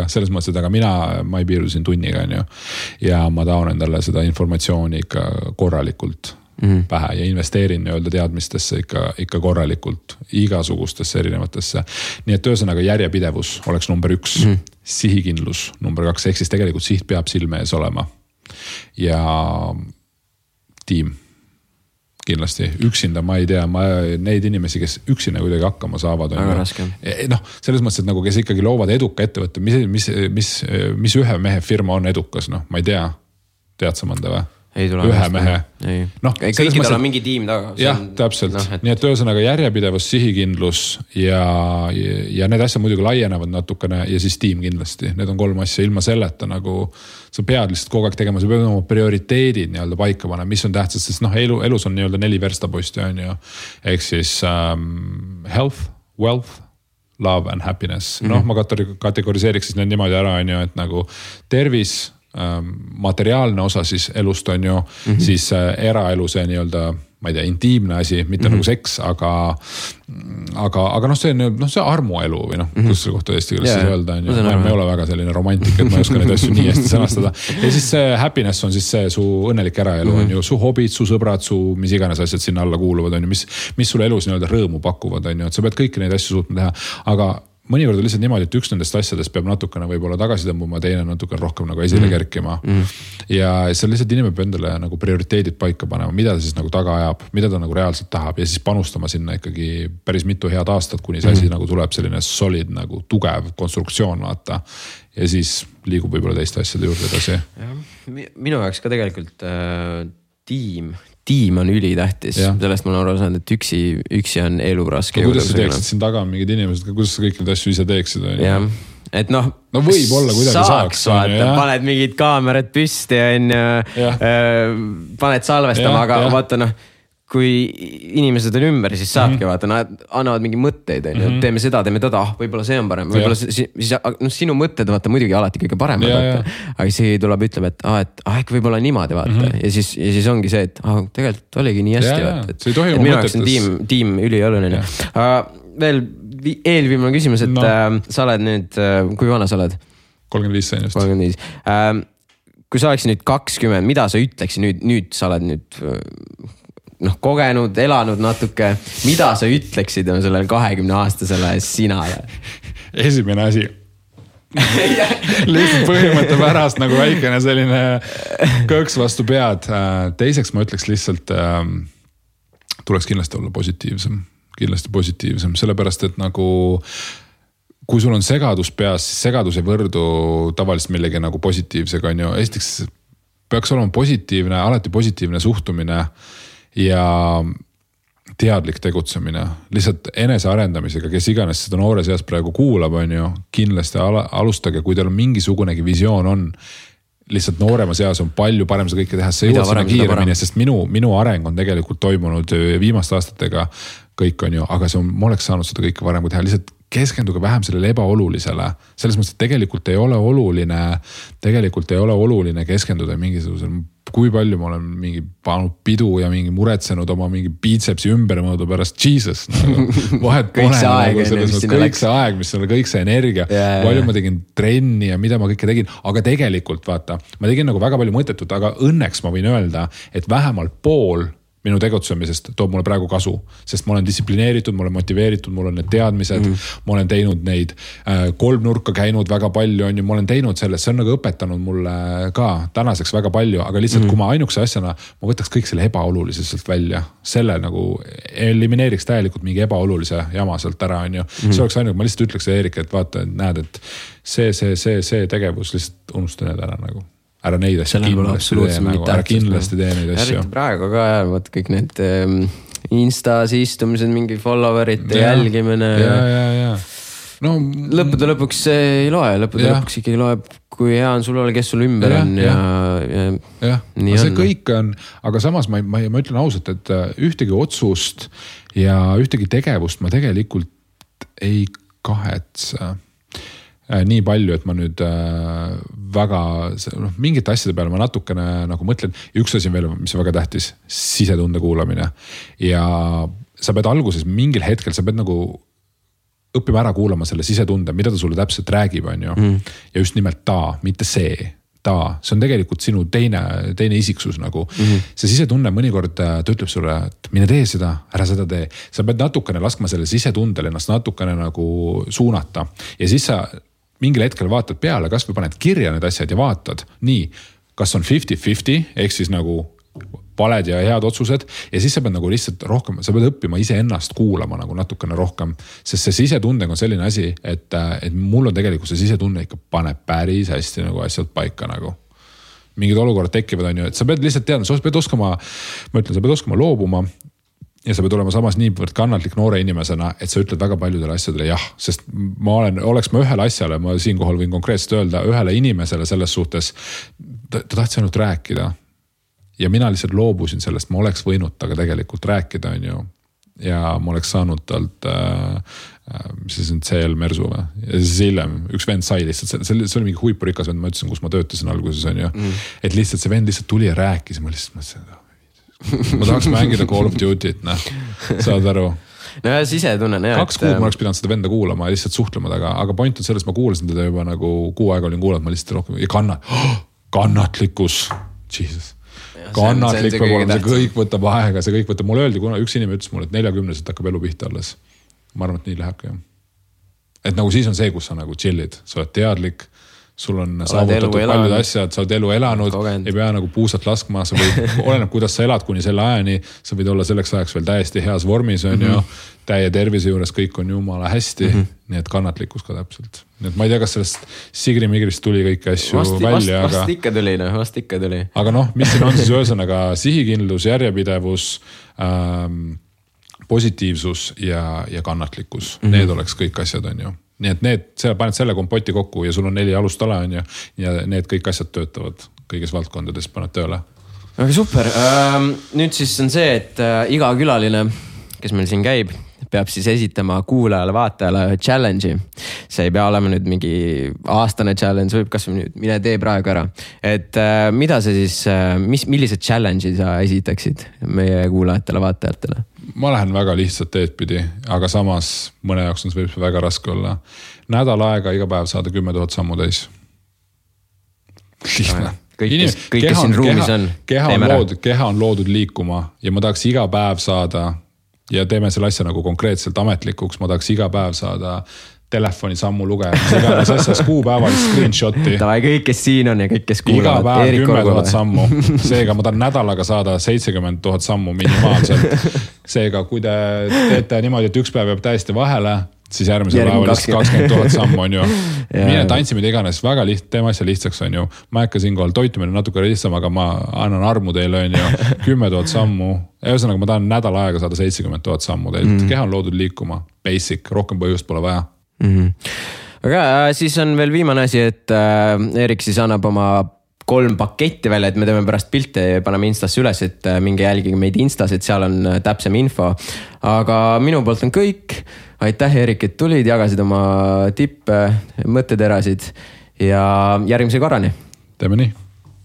S2: selles mõttes, et aga ma ei piirdu siin tunniga on ju. Ja ma tahan endale seda informatsiooni ikka korralikult pähe ja investeerin nii-öelda teadmistesse ikka korralikult igasugustesse erinevatesse. Nii et ühesõnaga järjepidevus oleks number 1, sihikindlus number 2, ehk siis tegelikult siht peab silme ees olema ja tiim kindlasti. Üksinda ma ei tea, neid inimesi, kes üksinda kuidagi hakkama saavad.
S1: Väga raske.
S2: Selles mõttes, et nagu kes ikkagi loovad eduka ettevõtte, mis ühe mehe firma on edukas, ma ei tea, tead sa mõnda või? Ühe mehe.
S1: Kõikidel on mingi tiim taga.
S2: Jah, täpselt. Nii et ühesõnaga järjepidevus, sihikindlus ja need asjad muidugi laienevad natukene ja siis tiim kindlasti. Need on 3 asja ilma selleta nagu sa pead lihtsalt kogu aeg tegema, sa pead oma prioriteedid nii-öelda paika panema, mis on tähtsad, sest elus on nii-öelda 4 verstaposti on ju. Ehk siis health, wealth, love and happiness. Ma kategoriseeriks siis need niimoodi ära on ju, et nagu tervis, materiaalne osa siis elust on ju, siis eraelu see nii-öelda, ma ei tea, intiimne asi, mitte nagu seks, aga see armuelu või kus selle kohta eesti keeles öelda on ju, ma ei ole väga selline romantik, et ma ei oska neid asju nii hästi sõnastada. Ja siis see happiness on siis see su õnnelik eraelu on ju, su hobid, su sõbrad, su mis iganes asjad sinna alla kuuluvad on ju, mis sulle elus nii-öelda rõõmu pakuvad on ju, et sa pead kõiki neid asju suutma teha, aga mõnikord on lihtsalt niimoodi, et üks nendest asjadest peab natukene võib-olla tagasi tõmbuma, teine natukene rohkem nagu esile kerkima. Ja seal lihtsalt inimene peab endale nagu prioriteedid paika panema, mida ta siis nagu taga ajab, mida ta nagu reaalselt tahab ja siis panustama sinna ikkagi päris mitu head aastat, kuni see asi nagu tuleb selline solid nagu tugev konstruktsioon vaata. Ja siis liigub võib-olla teiste asjade juurde edasi.
S1: Minu jaoks ka tegelikult tiim on ülitähtis, sellest ma olen aru saanud, et üksi on elu raske.
S2: Kuidas sa teeksid siin taga mingid inimesed, kuidas sa kõik need asju ise teeksid?
S1: Jah, et no
S2: võib olla kuidagi saaks.
S1: Paned mingid kaamerad püsti ja paned salvestama, aga vaata kui inimesed on ümber, siis saabki vaata, nad annavad mingi mõtteid, teeme seda, teeme teda, võib-olla see on parem, võib-olla siis sinu mõtted vaata muidugi alati kõige parem, aga see tuleb ütleb, et äkki võib-olla niimoodi vaata ja siis ongi see, et tegelikult oligi nii hästi vaata, et minu jaoks on tiim ülioluline. Veel eelviimane küsimus, et sa oled nüüd, kui vana sa oled?
S2: 35 sain just.
S1: 35. Kui sa oleks nüüd 20, mida sa ütleksid nüüd sa oled nüüd kogenud, elanud natuke, mida sa ütleksid sellele 20-aastasele sinale?
S2: Esimene asi. Lihtsalt põhimõtte pärast nagu väikene selline kõks vastu pead. Teiseks ma ütleks lihtsalt, tuleks kindlasti olla positiivsem, sellepärast, et nagu kui sul on segadus peas, siis segadus ei võrdu tavaliselt millegi nagu positiivsega on ju. Esiteks peaks olema positiivne, alati positiivne suhtumine ja teadlik tegutsemine, lihtsalt enese arendamisega, kes iganes seda noore seas praegu kuulab, on ju, kindlasti alustage, kui teil on mingisugunegi visioon on, lihtsalt noorema seas on palju parem seda kõike teha, see jõuad sinna kiiremini, sest minu areng on tegelikult toimunud viimaste aastatega kõik on ju, aga ma oleks saanud seda kõike varem kui teha, lihtsalt keskenduge vähem sellele ebaolulisele, selles mõttes, et tegelikult ei ole oluline keskenduda mingisugusel, kui palju ma olen mingi pannud pidu ja mingi muretsenud oma mingi biitsepsi ümbermõõdu pärast Jesus. Vahet pole kõik see aeg, mis on kõik see energia, palju ma tegin trenni ja mida ma kõike tegin, aga tegelikult vaata, ma tegin nagu väga palju mõttetut, aga õnneks ma võin öelda, et vähemalt pool minu tegutsemisest toob mulle praegu kasu, sest ma olen distsiplineeritud, ma olen motiveeritud, mul on need teadmised, ma olen teinud neid kolmnurka käinud väga palju, on ju, ma olen teinud sellest, see on nagu õpetanud mulle ka tänaseks väga palju, aga lihtsalt kui ma ainukese asjana, ma võtaks kõik selle ebaoluliselt välja, selle nagu elimineeriks täielikult mingi ebaolulise jama sealt ära, on ju. See oleks ainult, ma lihtsalt ütleks Eerik, et vaata, näed, et see tegevus lihtsalt unusta need ära nagu. Ära neid asju kindlasti tee neid asju.
S1: Eriti praegu ka, vaat kõik need Instas istumised, mingi followerite jälgimine.
S2: Ja. No,
S1: lõppude lõpuks ei loe, lõpuks ikkagi loeb, kui hea on sul ole, kes sul ümber on.
S2: Ja, see kõik on, aga samas ma ütlen ausalt, et ühtegi otsust ja ühtegi tegevust ma tegelikult ei kahetse nii palju, et ma nüüd väga, mingite asjade peale ma natukene nagu mõtlen, üks asi veel, mis on väga tähtis, sisetunde kuulamine ja sa pead alguses mingil hetkel, sa pead nagu õppima ära kuulama selle sisetunde, mida ta sulle täpselt räägib, on ju, ja just nimelt mitte see on tegelikult sinu teine isiksus nagu. See sisetunne mõnikord ta ütleb sulle, et mine tee seda, ära seda tee. Sa pead natukene laskma selle sisetundel ennast natukene nagu suunata ja siis sa mingil hetkel vaatad peale, kas või paned kirja need asjad ja vaatad nii, kas on 50-50 ehk siis nagu valed ja head otsused ja siis sa pead nagu lihtsalt rohkem, sa pead õppima ise ennast kuulama nagu natukene rohkem, sest see sisetundega on selline asi, et mul on tegelikult see sisetunne ikka paneb päris hästi nagu asjad paika nagu. Mingid olukorrad tekivad on ju, et sa pead lihtsalt teadma, sa pead oskama loobuma ja sa pead olema samas niivõrd kannatlik noore inimesena, et sa ütled väga paljudele asjadele jah, sest oleks ma ühele asjale, ma siinkohal võin konkreetselt öelda, ühele inimesele selles suhtes, ta tahtis ainult rääkida ja mina lihtsalt loobusin sellest, ma oleks võinud taga tegelikult rääkida, on ju, ja ma oleks saanud talt mis see on CL Mersu või? Ja siis hiljem üks vend sai lihtsalt, see oli mingi huipurikas vend, ma ütlesin, kus ma töötasin alguses on ju. Et lihtsalt see vend lihtsalt tuli ja rääkis, ma lihtsalt mõtlesin, ma tahaks mängida Call of Duty't, saad aru.
S1: No ja siis ise tunnen.
S2: 2 kuud ma oleks pidanud seda venda kuulama ja lihtsalt suhtlema taga, aga point on selles, ma kuulasin teda juba nagu 6 aega olin kuulanud, ma lihtsalt rohkem ja kannatlikkus, Jesus. Kannatlik peab olema, see kõik võtab aega, see kõik võtab, mulle öeldi, kuna üks inimene ütles mulle, et 40-selt hakkab elu pihta alles. Ma arvan, et nii lähebki. Et nagu siis on see, kus sa nagu chillid, sa oled teadlik, sul on saavutatud paljud asjad, sa oled elu elanud, ei pea nagu puusalt laskma, sa võid, oleneb, kuidas sa elad kuni selle ajani, sa võid olla selleks ajaks veel täiesti heas vormis, on ju, täie tervise juures, kõik on jumala hästi, nii et kannatlikkus ka täpselt. Nii et ma ei tea, kas sellest Sigri-Migrist tuli kõiki asju välja, aga...
S1: Vast ikka tuli.
S2: Aga noh, mis siin on siis ühesõnaga sihikindlus, järjepidevus, positiivsus ja kannatlikkus. Need oleks kõik asjad, on ju. Nii et sa paned selle kompoti kokku ja sul on 4 alustala, on ju, ja need kõik asjad töötavad kõigis valdkondades, paned tööle.
S1: Aga super. Nüüd siis on see, et iga külaline, kes meil siin käib, peab siis esitama kuulajale, vaatajale challenge'i. See ei pea olema nüüd mingi aastane challenge, võib kas nüüd mine tee praegu ära. Et mida see siis, millised challenge'i sa esitaksid meie kuulajatele, vaatajatele?
S2: Ma lähen väga lihtsalt teedpidi, aga samas mõne jaoks on see võib väga raske olla. Nädal aega iga päev saada 10 000 sammu täis. Lihtne.
S1: Kõik, kes siin ruumis on.
S2: Keha on loodud liikuma ja ma tahaks iga päev saada ja teeme selle asja nagu konkreetselt ametlikuks, ma tahaks iga päev saada telefoni sammu lugeja, mis iganes asjas kuupäevalist screenshoti.
S1: Tavai, kõik, kes siin on ja kõik, kes kuulavad.
S2: Iga päev 10 000 sammu. Seega ma tahan nädalaga saada 70 000 sammu minimaalselt. Seega, kui te teete niimoodi, et üks päev jääb täiesti vahele, siis järgmise päeval 20 000 sammu on ju. Mine tantsimine iganes, väga teeme asja lihtsaks on ju. Ma äkka siinkohal toitumine natuke lihtsam, aga ma annan armu teile on ju 10 000 sammu. Ühesõnaga ma tahan nädal aega saada 70 000 sammu teilt. Keha on loodud liikuma, basic, rohkem põhjust pole vaja.
S1: Aga siis on veel viimane asi, et Erik siis annab oma 3 paketti välja, et me teeme pärast pilte ja paneme Instasse üles, et minge jälgige meid Instas, et seal on täpsem info. Aga minu poolt on kõik. Aitäh, Erik, et tulid, jagasid oma tippe, mõtteterasid ja järgmise korrani.
S2: Teeme nii.